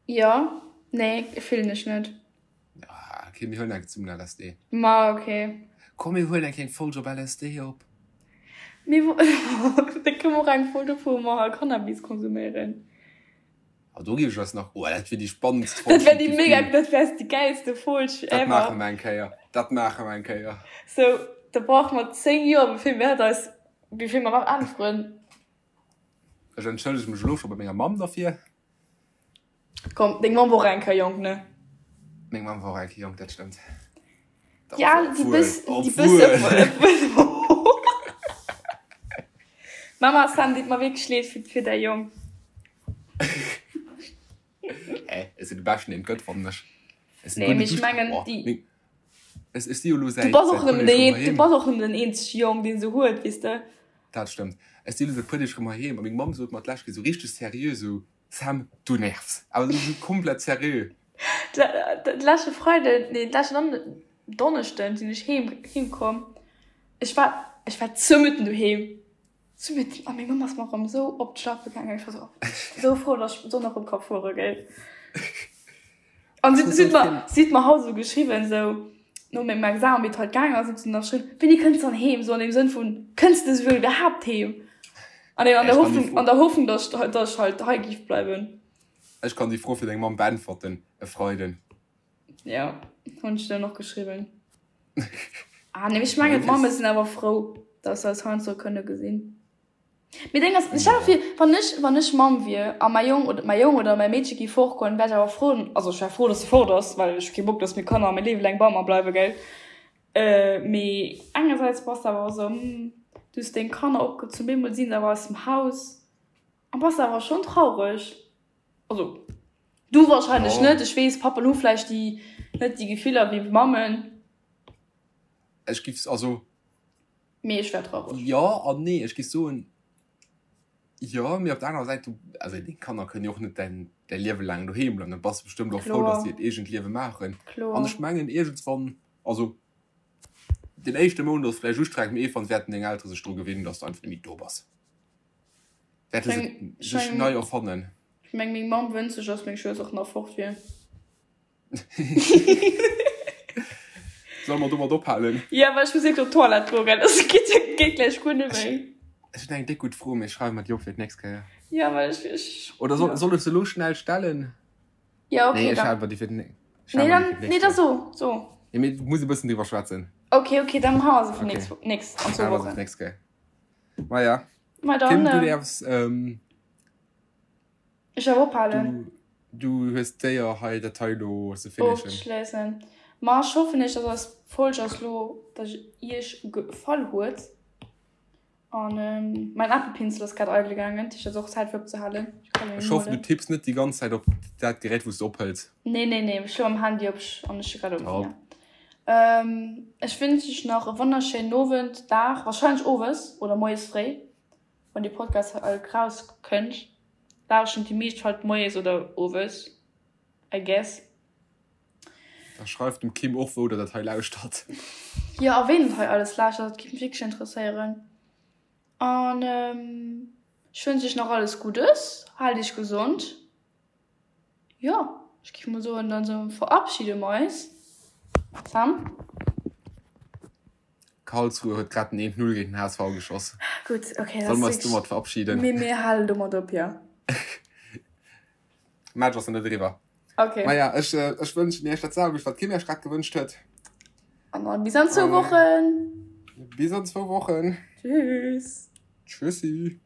Jo, nee, fillen ech net. Ah, okay, mir huelen eng zesummen LSD. Ma ok. Komm, mir huelen eng kleng Folg op LSD op. Mir da kënne mer och eng Folg op wou mer hei Cannabis konsuméieren. Ah, do géif ech eis nach, oh, dat wier déi spannendst Folg, Dat wär déi déi et géif mega, ginn. dat wär déi gäilste Folg Dat ever. maache mer eng Kéier, dat maache mer eng Kéier. Sou, da brauche mer 10 Joer, bevir mir dat eis, bevir mer dat äntweren. Ech entschëllege mech elo scho bei menger Mamm derfir. Komm, deng Mamm wor och eng Kéier jonk, ne? Meng Mamm wor och eng Kéier jonk, dat stëmmt. Ja, déi bëss, déi bëss, Mama Sam, deet mer wierklech leed fir, fir däi Jong. Hä, ech sinn de Beschten, deen et gëtt, fannen ech. Ech sinn Nee, guer mee net ech duerch. mengen, Oh, déi. meng, ech, ech si jo elo Du säit, bass och säit puer nëmmen Deeg den erëm een, du heiheem. bass och nëmmen den eenzege Jong, deen se huet, weess de. Dat stëmmt. Ech si elo säit puer Deeg erëm heiheem a meng Mamm sot mer d'lescht Kéier esou richteg seriö esou, Sam, du nervs. Awer esou komplett seriö. De leschte Freiden, nee, de leschten Donneschden sinn ech heem, heem komm. Ech war, ech war zëmitten doheem. Zëmitten. A meng Mamm ass mer erëm esou op d'Schlappe gaangen. Ech war esou, esou frou, dass ech d'Sonn erëm ka fuere, gell. An si huet mer, si huet mer haut esou geschriwwen, esou no mengem Examen, wéi et halt gaangen ass, huet si nach geschriwwen, Wéini kënns de dann heem? Esou an deem Sënn vun, Kënns de esouwuel iwwerhaapt heem? An an der Hoffnung, an der Hoffnung, dass ech, dass ech halt hei giff bleiwen. Ech kann déi Fro fir deng Mamm beäntwerten, e Freiden. Jo, hunn ech dann och geschriwwen. Ah nee, ech mengen d'Mamme sinn awer frou, dass se eis heiansdo kënne gesinn. Mee deng ass, ech stell mer vir, wann ech, wann ech Mamm wier a mäi Jong oder mäi Jong oder mäi Meedche géif fortgoen, wär ech awer frou, also ech wär frou, dass e fort ass, well ech hu kee Bock, dass meng Kanner mäi Liewe laang bei mer bleiwe, gell. Mee engersäits bass de awer och esou, hm, du hues deng Kanner opgezunn, bemol si se awer aus dem Haus a bass awer schonn traureg. Also du warscheinlech net, ech weess, Pappen hu vläicht déi net déi Gefiller wéi Mammen. Ech giff, also. Mee ech wär traureg. Jo an nee. Ech géif soen, jo, mee op der anerer Säit, du, also deng Kanner kënnen jo och net däin, däi Liewe laang doheem bleiwen. Da bass de bestëmmt och frou, datt si hiert eegent Liewe maachen. Kloer. An ech mengen iergendswann, also den éischte Mount ass vläicht ustrengend, mee iergendwann wäerten deng Eltere sech dru gewinnen, datt s du einfach net méi do bass. Wäerte se sech nei erfannen. Ech meng, meng Mamm wënscht sech, datt meng Schwëster och nach fort wier. Solle mer domat ophalen? Jo, well ech muss wierklech op d'Toilette goen, gell? Dat geet, geet gläich guer net méi. Ech hunn eng déck gutt Fro, mee ech schreiwe mer déi op fir d'nächst Kéier. Jo, well ech, ech. Oder soll, soll ech se elo schnell stellen? Jo, okay, Nee, ech da. hale mer déi fir d'nä-, ech Nee, hale mer déi dann, fir d'nächst nee, da Kéier. so, so. Nee, mee du muss e bëssen driwwer schwätzen. Okay, okay, dann hale mer se fir Okay. nächst, nächst, an zwou Hale mer se fir Wochen. d'nächst Kéier. Maja. Ma Kim, dann, du äh, däerfs, ähm. Ech awer ophalen. Du, du hues d'Éier hei dat hei elo ze finishen. Ofzeschléissen. Ma ech hoffen iech, dass eis Folg ass lo, dass iech gefall huet. An mäin Apple-Pinsel ass grad eidel gaangen, dat heescht et ass och Zäit fir opzehalen. Ech kann en Ech hoffen du huelen. tipps net déi ganz Zäit op dat Gerät wou s de ophëls. Nee, nee, nee, ech hu am Handy op an ech hu grad op. Top. Ech wënsch iech nach e wonnerschéinen Owend, Dag, wahrscheinlech owes oder moies fréi. Wann dee Podcast raus kënnt, lauschen déi meescht halt moies oder owes, I guess. Da schreift dem Kim och wou der dat hei lauschtert. Jo, a ween dat hei alles lauschtert, dat géif mech wierklech interesséieren. An ech wënsch iech nach alles Guddes, haalt iech gesond. Jo, ech géif mol soen, dann verabschiede mer eis. Sam? Karlsruhe huet grad den 1-0 géint den HSV geschoss. Gutt, okay, Solle mer eis domat verabschieden? Mir, mir halen domat op, jo. Match ass nach net eriwwer. Okay. Maja, ech, ech wënschen iech dat selwecht, wat d'Kim iech grad gewënscht huet. An dann bis an zwou Wochen. Bis an zwou Wochen. Tschüss. Tschüssi.